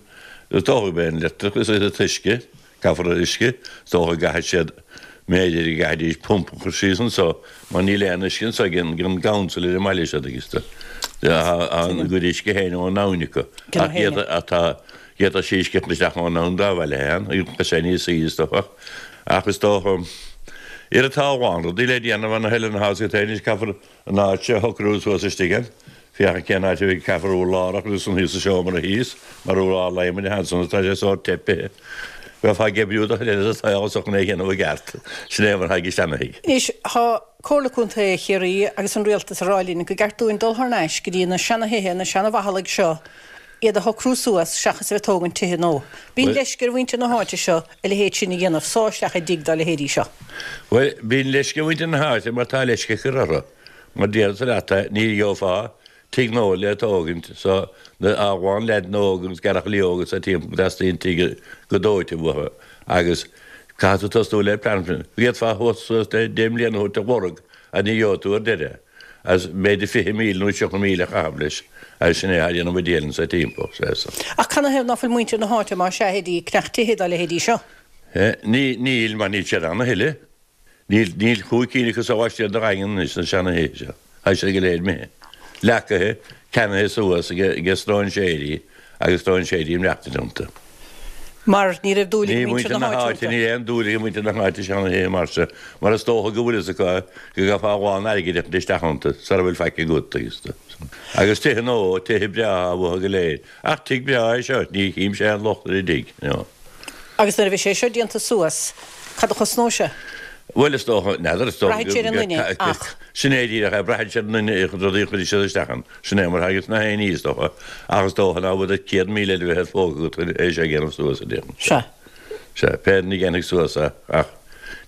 Is dócha gurb é an leictreachas agus an t-uisce. Caithfear uisce, is dócha go gcaithfidh siad, mb'fhéidir go gcaithfidís pumpa a chur síos anso mar níl aon uisce anso ag an gcouncil ar an mbaile seo agus tá a gcuid uisce féin ón abhainn acu ach d'fhéadfadh tá d'fhéadfadh sí uisce a chur isteach ón abhainn dá bhaile féin agus tá sé níos saoire is dócha ach is dócha ar tá a lán rudaí le déanamh an thuilleadh na háite anois caithfear an áit seo a shocrú suas istigh ann. Féachaint cén áit a bhfuil caithfear urlár a chur ansan thíos sa seomra thíos, mar urlár adhmaid atá ansan agus tá sé sórt teipithe. Bheifeá ag oibriú do chuid eile sa tsaol anso chun é a dhéanamh i gceart. Sin é mar atá ag seana-thigh. Anois, tá Comhairle Contae Chiarraí agus an Rialtas ag rá linn go gceart dúinn dul thar n-ais go dtí na seana-thithe, na seana-mhachallaigh seo, iad a shocrú suas seachas a bheith ag tógaint tithe nua. Bíonn leisce ar mhuintir na háite seo a leithéid sin a dhéanamh, sá isteach i dtigh dá leithéidí seo. Bhuel, bíonn leisce ar mhuintir na háite mar tá leisce ag cur orthu. Mar déarfadsa leat é, ní gheofá tigh nua le tógaint so na a lán leaideanna óga agus gearrchailí óga sa timpeall go dteastaíonn tigh go dóite uathu agus caithfidh tú tosnú le plean. D'fhéadfá a thabhairt suas le deich mbliana a thabhairt a lorg ach ní gheobhaidh tú ar deireadh. As b'fhéidir 20,000 nó 30,000 a chaitheamh leis, agus sin é a dhéanamh a díol anso timpeall, sea. Ach canathaobh ná fuil muintir na háite, más ea, ag ceannach tithe dá leithéidí seo? Ní, níl, mar níl siad ann a thuilleadh. Níl, níl chúig cinn acu sa laistiar de Dhaingean anois, sna seana-thithe seo. Tá siad go léir imithe. Leacaithe, ceannaithe suas ag, ag stróinséirí agus stróinséirí ag maireachtaint iontu. Mar ní raibh dúil ag muintir na háite iontu. Níl aon dúil ag muintir na háite seana-thithe mar seo, mar is dócha go bhfuil fhios acu go gcaithfeá a lán airgid a chur isteach iontu sara bhfuil faic agat agus agus tithe nua, tithe breátha uathu go léir. Ach tigh breá é seo, ní chím-se aon locht ar an dtigh, no. Agus nuair a bheidh sé seo déanta suas, Cad a chosnóidh sé? Bhuel, is dócha, n'fheadar, is dócha Braitheann sé ar an nduine, ach. Sin é díreach é, braitheann sé ar an nduine, a chuid rudaí a chuirfidh siad isteach ann. Sin é mar agus na haon ní, is dócha. Ach is dócha ná bhfuil 100,000 eile bheith ar phóca agat chun é seo a dhéanamh suas, a déarfainn. Sea. Sea, pé duine a dhéanfaidh suas é, ach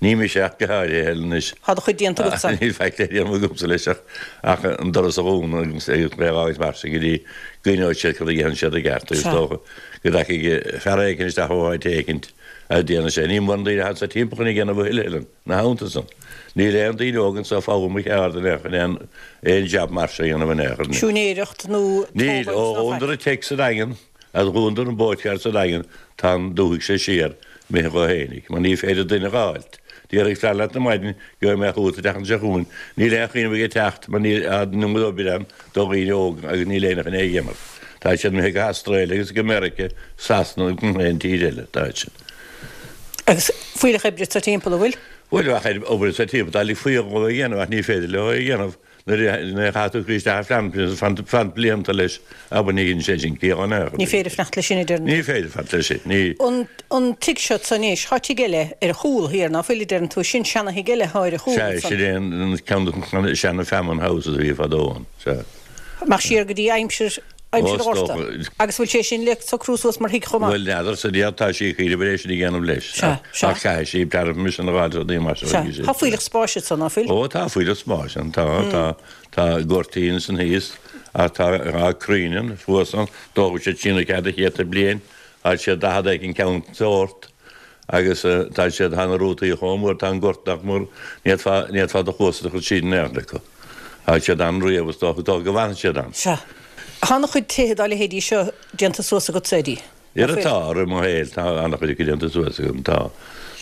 ní mise ach go háirithe, anois. Tá do chuid déanta agatsa. Níl faic le déanamh agamsa leis ach ach an doras a dhúnadh agus é a fhágaint mar sin go dtí go gcoinneoidh siad cad a dhéanann siad i gceart agus is dócha go dtagfaidh fear éicint isteach ó áit éicint a déanfaidh sé. Níl mórán daoine anso timpeall chun é a dhéanamh a thuilleadh, Helen, ina theannta san. Níl aon daoine óga anso ag foghlaim a cheard in aon chor, aon aon jab mar seo a dhéanamh in aon chor. Siúinéireacht nó Níl. Ó tógáil ná dhúnadar faic. an tigh sa Daingean agus dhúnadar an boatyard sa Daingean tá an dúthaigh seo siar imithe dhó fhéinig, mar ní féidir duine a dh'fháilt. Déarfaidh fear leat ar maidin gheobhaidh mé chugat an tseachtain seo chugainn. Níl aon chuimhneamh aige teacht mar níl an iomad obair ann do dhaoine óga agus níl éinne chun é a dhéanamh. Tá siad imithe go hAstráile agus go Meirice, Sasana agus gach aon tír eile. Tá siad. Agus fuílleach oibre sa timpeall, an bhfuil? Bhuel, bheadh obair sa timpeall. Dá ligfí dhóibh é a dhéanamh ach ní féidir leo é a dhéanamh. Nuair a chaithfidh tú cur isteach ar phlean fanacht blianta leis, abair, ní dhéanann sé sin ciall in aon chor. Ní féidir fanacht leis sin, a deireann tú. Ní féidir fanacht leis sin, ní. An tigh seo anso anois, tá tigh eile ar a chúl thiar, ná fuil, a deireann tú, sin seana-thigh eile atá ar a chúl Sea, ansan. sin é an ceann de na seana-Famine Houses a bhí fadó ann, sea. Amach siar go dtí aimsir, aimsir an Ghorta. Agus bhfuil sé sin le socrú suas mar thigh chomh maith? Bhuel, n'fheadar, sa deireadh tá sí ag cuimhneamh ar é sin a dhéanamh leis. Sea, sea. Ach caithfidh sí planning permission a dh'fháil rudaí mar seo. Sea. Tá fuílleach spáis anso, ná fuil? Ó, tá fuílleach spáis ann, tá, tá, tá goirtín ansan thíos ach tá, tá crainn ann, thuas ann, d'fhógair siad síneadh cead a chéadta bliain, tá siad 40 éigin ceann sórt agus tá siad, tá na rútaí chomh mór, tá an gort nach mór, ní fhéadfá, ní fhéadfá do chluasa a chur tríd in aon chor acu. Tá siad ann riamh, is dócha, dócha go bhfanfaidh siad ann. Sea. Tá ana-chuid tithe dá leithéidí seo déanta suas agatsa, Eddie. Ar tá, i rith mo shaoil, tá ana-chuid acu déanta suas agam, tá.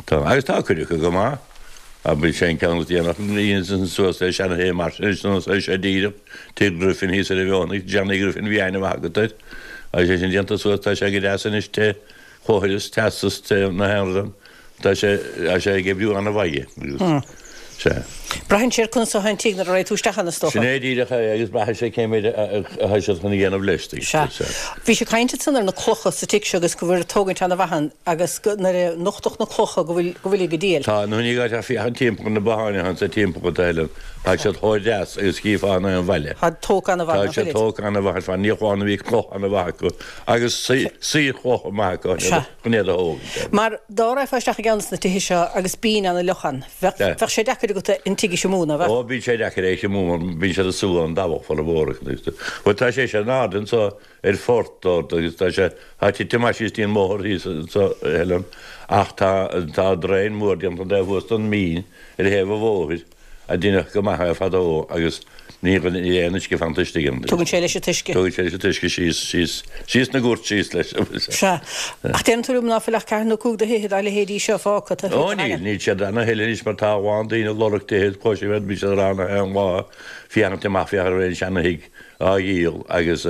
Tá. Agus tá cuid acu go maith. Abair sé an ceann is déanach a dhéanamh suas le seana-thigh mar sin, is é seo díreach Tigh Griffin thíos ar an Bhfeothanaigh, Johnny Griffin, bhí aithne mhaith agat air. Agus é sin déanta suas, tá sé go deas anois, te chóithris, teastas, te na haon rud ann. Tá sé, tá sé ag oibriú an-mhaith agus, sea. Braitheann sé ar conas atá an tigh nuair a raghaidh tú isteach ann, is dócha. Sin é díreach é agus braitheann sé cé méid atá siad chun a dhéanamh leis, Sea. Bhís ag caint ansan ar na clocha sa tigh seo agus go bhfuil tógaint ana-mhaith ann agus go, nuair a nochtadh na clocha go bhfuil, go bhfuil ag díol. Tá, nó ní gá ach féachaint timpeall ar na botháin atá anso timpeall atá Helen, tá siad chomh deas agus chífeá in aon bhaile. Tá tógtha ana-mhaith, Tá siad tógtha ana-mhaith ar fad, ní amháin a bhí cloch ana-mhaith acu agus saorchloch maith acu. Sea. Chun iad a thógaint. Mar dá raghfá isteach i gceann de na tithe seo agus binn ana fhliuch ann, bheadh, bheadh sé deacair agat an tigh a thriomú, ná bheadh? Ó, bíonn sé deacair é a thriomú mar bíonn siad ag sú an dabhach formhór acu. Bhuel, tá sé sin in airde anso ar phort ard agus tá sé, tá tite amach síos dtí an mbóthar thíos anso, a Helen, ach tá, tá draein mór déanta an taobh thuas den mbinn ar thaobh an bhóthair. a deineadh go maith é fadó agus ní níl aon uisce fanta istigh ann. Tugann sé leis an t-uisce. Tugann sé leis an t-uisce síos, síos, síos na goirt síos leis. Sea. Ach deireann tú liom ná fuil ach ceathair nó 5 de thithe dá leithéidí seo fágtha taobh thiar den Ó níl, níl siad ann a thuilleadh anois mar tá a lán daoine ag lorg tithe, cloisim iad, bíonn siad ag rá gach aon lá, féachaint amach, féach ar aon seana-thigh á dhíol agus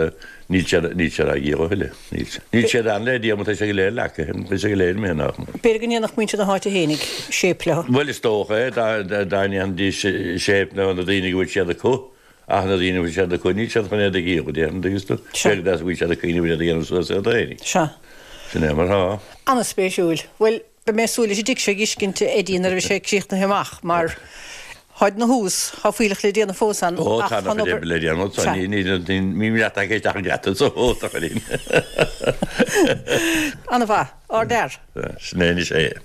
níl siad, níl siad á dhíol a thuilleadh, níl. Níl siad ann le díol mar tá sé go léir leagtha, tá sé go léir imithe nach mór. B'fhéidir go ndéanfadh muintir na háite fhéinig séip leo. Bhuel is dócha é, dá, dá ndéanfaidís séip leo na daoine go bhfuil siad acu, ach na daoine a bhfuil siad acu níl siad chun iad a dhíol, déarfainn, agus tú, Sea. b'fhéidir go bhfuil siad ag cuimhneamh ar iad a dhéanamh suas iad fhéinig. Sea. Sin é mar atá. An-spéisiúil. Bhuel, Beidh mé ag súil leis an dtigh seo a dh'fheiscint, a Eddie, nuair a bheidh sé críochnaithe amach, mar tháid na thuas, tá fuílleach le déanamh fós ann, Ó, ach tá tá an an-chuid obair. oibre le déanamh ansan, Sea. ní, ní, ní, ní leat ach isteach an geata so, ó, tá chuirín. An-mhaith. Ardfhear. Sin é anois é.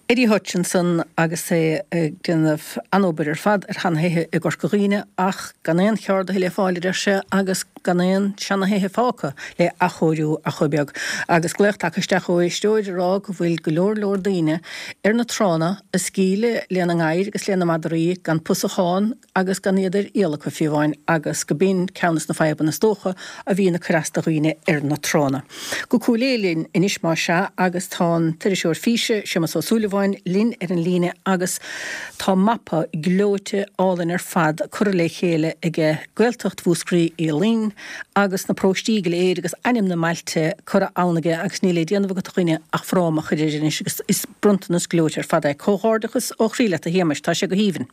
Eddie Hutchinson agus é ag déanamh an-obair ar fad ar sheanthithe i gCorca Dhuibhne ach gan aon cheardaithe le fáil a deir sé agus gan aon seanathithe fágtha le athchóiriú ach chomh beag. Agus glaoch tagtha isteach ó éisteoir ag rá go bhfuil go leor leor daoine ar na tránna ag scaoileadh lena ngadhair agus lena madraí gan pusachán agus gan iad ar iall acu fiú amháin agus go b'in ceann des na fadhbanna is dócha a bhíonn ag cur as do dhaoine ar na tránna. Go Cúil Aodha linn anois más ea agus tá an t-iriseoir físe, Séamus Ó Súilleabháin, linn ar an líne agus tá mapa gleoite álainn ar fad curtha le chéile aige, Gaeltacht Mhúscraí Uí Fhloinn agus na paróistí go léir agus ainm na mbailte curtha ann aige agus níl le déanamh agat a dhuine ach fráma a chur air anois agus is bronntanas gleoite ar fad é. Comhghairdeachas ó chroí leat a Shéamais, tá sé go haoibhinn.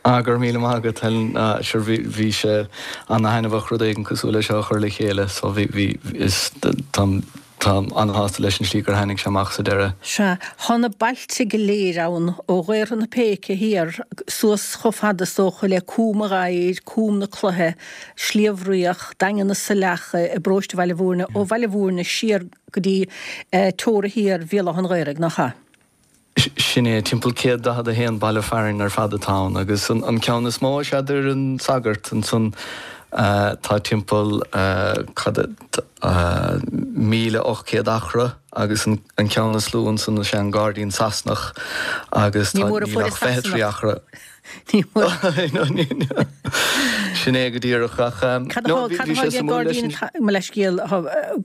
Ah, go raibh míle maith agat, Helen. Sure, bhí, bhí sé ana-thaitneamhach rud éigin cosúil le seo a chur le chéile, so bhí, bhí, is, táim. Táim an-shásta leis an slí gur tháinig sé amach sa deireadh. Sea, tá na bailte go léir ann, ó Ghaorthadh na Péice thiar suas chomh fada is dócha le Cúm an Ghadhair, Cúm na Cloiche, Sliabh Riach, Daingean na Saileach i bparóiste Bhaile Mhúirne, ó Bhaile Mhúirne siar go dtí teora thiar Bhéal Átha an Ghaorthaidh, nach ea? Sin é, timpeall 141 baile fearainn ar fad atá ann, agus an ceann is mó is ea Doire an Sagart, ansan tá timpeall, cad é, 1,800 acra, agus an ceann is lú ansan is ea an Gairdín Sasanach, agus tá, níl ach 23 acra. Ní mór. Sin é go díreach, ach Cad atá ag Gairdín, mo leithscéal,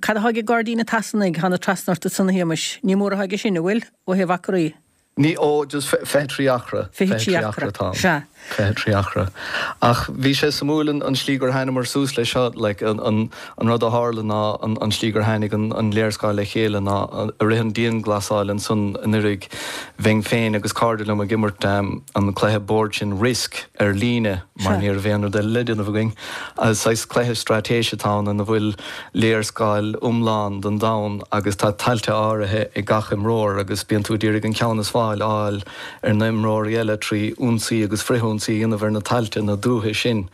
cad atá ag Gairdín an tSasanaigh, thána trasna ort ansan a Shéamais, ní mór atá aige sin, an bhfuil, ó thaobh acraí? Ní, ó, just 23 acra. 23 acra atá ann. Sea. 23 acra. Ach bhí sé suimiúil an slí gur thánamar suas leis seo, like, an rud a tharla ná an slí gur tháinig an léarscáil le chéile ná i rith an dianghlasáil ansan anuraidh, Bheinn féin agus cairde liom ag imirt an cluiche boird sin Risk ar líne mar ní raibh aon rud eile le déanamh againn. Saghas cluiche straitéise atá ann ina bhfuil léarscáil iomlán den domhan agus tá tailte áirithe ag gach imreoir agus bíonn tú ag iarraidh an ceann is fearr a fháil ar na imreoirí eile trí ionsaí agus frithionsaí a dhéanamh ar na tailte na dúiche sin.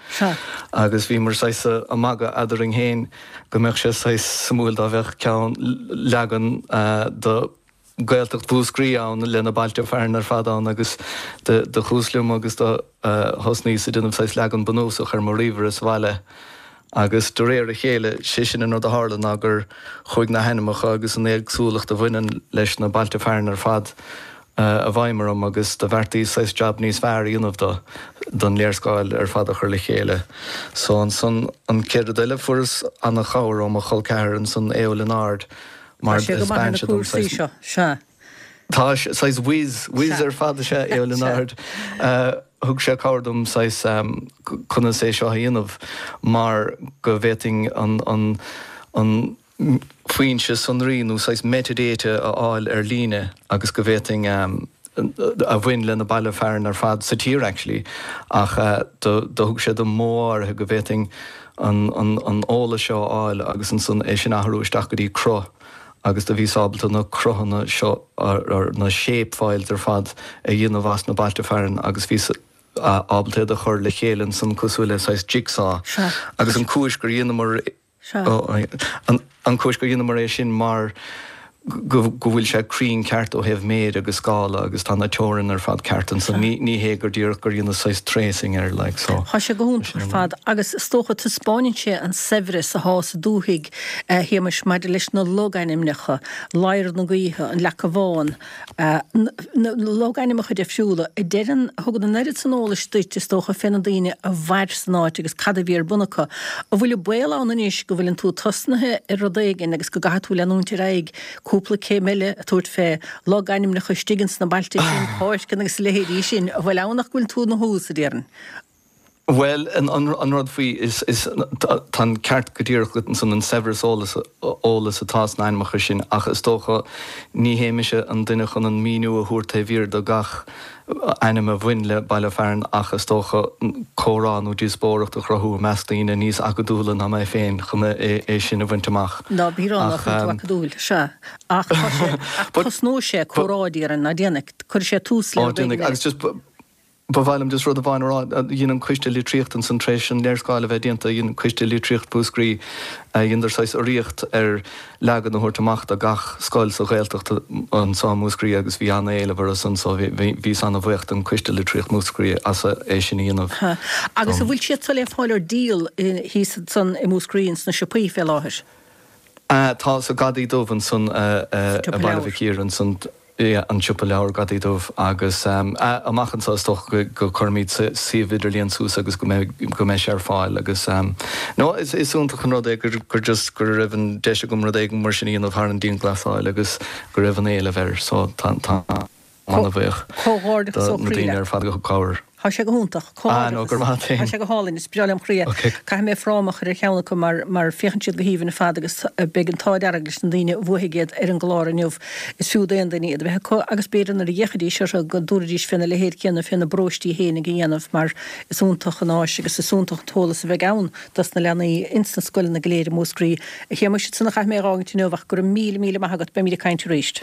Agus bhíomar saghas ag magadh eadrainn féin go mbeadh sé saghas suimiúil dá mbeadh ceann leagan de Gaeltacht Mhúscraí ann le na bailte fearainn ar fad ann agus do chuas liom agus do thosnaíos ag déanamh saghas leagan bunúsach ar mo ríomhaire sa bhaile agus de réir a chéile, sé sin an rud a tharla ná gur chuaigh na hainmneacha agus an éagsúlacht a bhaineann leis na bailte fearainn ar fad i bhfeidhm orm agus do bheartaíos saghas jab níos fearr a dhéanamh do, don léarscáil ar fad a chur le chéile. So ansan an chéad rud eile fuaireas ana-chabhair ó mo chol ceathar ansan Aodh Ó Lionáird, mar Tá sé go maith ar na cúrsaí seo, sea. Tá saghas whiz, whiz ar fad is ea Aodh Ó Lionáird. Thug sé cabhair dom saghas conas é seo a dhéanamh mar go bhféadfainn an, an, an foinse sonraí nó saghas metadata a fháil ar líne agus go bhféadfainn a bhain le na baile fearainn ar fad sa tír actually ach do thug sé dom modh áirithe go bhféadfainn an an eolas seo a fháil agus ansan é sin a athrú isteach go dtí cruth agus do bhíos ábalta na cruthanna seo or na shape files ar fad a dhéanamh as na bailte fearainn agus bhíos ábalta iad a chur le chéile ansan cosúil le saghas jigsaw agus an cúis gur dheineamar An chúis gur dheineamar é sin mar go bhfuil sé cruinn ceart ó thaobh méid agus scála agus tá na teorainn ar fad ceart ansan. Ní hé gur díreach gur dheineas saghas tracing air like so. Tá sé go hiontach ar fad agus is dócha taispeáineann sé an saibhreas athá sa dúthaigh, a Shéamais, maidir leis na logainmneacha, Ladhar na Gaoithe, an Leaca Bhán, na logainmneacha difriúla a deireann, a thugann an oiread san eolais duit, is dócha, fé na daoine a mhair san áit agus cad a bhí ar bun acu. An bhfuil an baol ann anois go bhfuileann tú tosnaithe ar rud éigin agus go gcaithfidh tú leanúint ar aghaidh cúpla céim eile a tabhairt fé logainmneacha istigh ins na bailte sin, páirceanna agus a leithéidí sin, an bhfuil ann ach go bhfuil tú ina thús, a déarfainn? Bhuel, an rud faoi, is, tá an ceart go díreach agat ansan, an saibhreas eolas, eolas atá sna hainmneacha sin ach is dócha ní hé mise an duine chun an míniú a thabhairt taobh thiar de gach ainm a bhain le baile fearainn ach is dócha comhrá nó díospóireacht a chruthú i measc daoine níos acadúla ná mé féin chun é sin a bhaint amach. Ná bí ag rá nach bhfuil tú acadúil, sea. Ach tá sé, ach tosnóidh sé comhrá, déarfainn, ná déanfaidh, cuirfidh sé tús le Ó, rud éigin déanfaidh, eile. agus just, Ba mhaith liom just rud amháin a rá. Dhein an Coiste Litríochta ansan, tar éis an léarscáil a bheith déanta, dhein Coiste Litríocht Mhúscraí, dheineadar saghas urraíocht ar leagan a thabhairt amach do gach scoil sa Ghaeltacht anso i Múscraí agus bhí an-éileamh orthu san so bhíos an-bhuíoch don Coiste Litríocht Mhúscraí as é sin a dhéanamh Agus an dom. bhfuil siad so le fáil ar díol thíos ansan i Múscraí ins na siopaí fé láthair? Tá, sa Ghadaí Dubh ansan Sa i tsiopa Baile leabhar. Mhic Íre ansan. an siopa leabhar Gadaí Dubh agus amach anseo is dócha go gcuirfimid suíomh idirlíon suas agus go mbeidh go mbeidh sé ar fáil agus no is is iontach an rud é gur gur just go raibh an deis agam rud éigin mar sin a dhéanamh thar an dianghlasáil agus go raibh an éileamh air so tá tá an-bhuíoch Comhghairdeachas do ó na chroí daoine leat. ar fad a thug cabhair. Tá sé go hiontach. Ah no, go raibh maith agat féin. Tá sé go hálainn, is breá lem chroí é. Caithfidh mé fráma a chur ar cheann acu mar mar féachann siad go haoibhinn ar fad agus beidh an t-ádh dearg leis na daoine a bhuafaidh iad ar an gclár inniu. Is fiú d'aon duine iad a bheith acu agus b'fhéidir nuair a d'fhéachfaidís orthu go dtabharfaidís féna leithéid céanna féna bparóistí fhéinig a dhéanamh mar is iontach an áis agus is iontach an t-eolas a bheidh ann dos na leanaí ins na scoileanna go léir i Múscraí. A Shéamuis, sin a chaithfidh mé a dh'fhágaint inniu ach go raibh míle míle maith agat, beimid ag caint arís.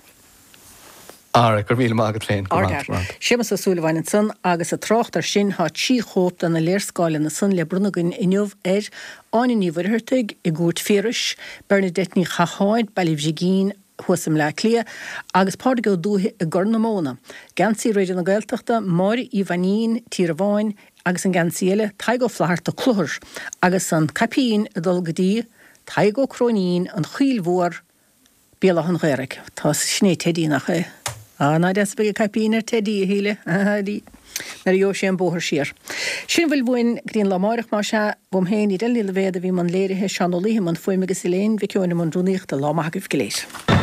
Alright, go raibh míle maith agat féin. Go raibh maith. Séamus Ó Súilleabháin ansan agus ag trácht ar sin tá 3 chóip de na léarscáileanna san le bronnadh againn inniu ar Áine Ní Mhuircheartaigh i gCúirt Phiarais, Bernadette Ní Chatháin, Baile Bhrigín thuas i mBleá Cliath, agus Pádraig Ó Dúiche i gCorr na Móna. Geansaí Raidió na Gaeltachta, Máire Uí Mhainín, Tír an Bháin, agus an geansaí eile, Tadhg Ó Flatharta, Cluthar, agus an caipín ag dul go dtí Tadhg Ó Cróinín, An Choill Mhór, Béal Átha an Ghaorthaidh. Tá, sin é Teidí, nach é? Á, ná deas a bheidh an caipín ar Teidí, a Shíle, nuair a gheobhaidh sé an bóthar siar. Sin a bhfuil uainn go dtí an lá amáireach, más ea. Uaim féin, Edel Ní Loibhéad a bhí i mbun léirithe, Seán Ó Laoithe i mbun fuaime agus Elaine Mhic Eoin i mbun rúnaíochta. Lá maith agaibh go léir.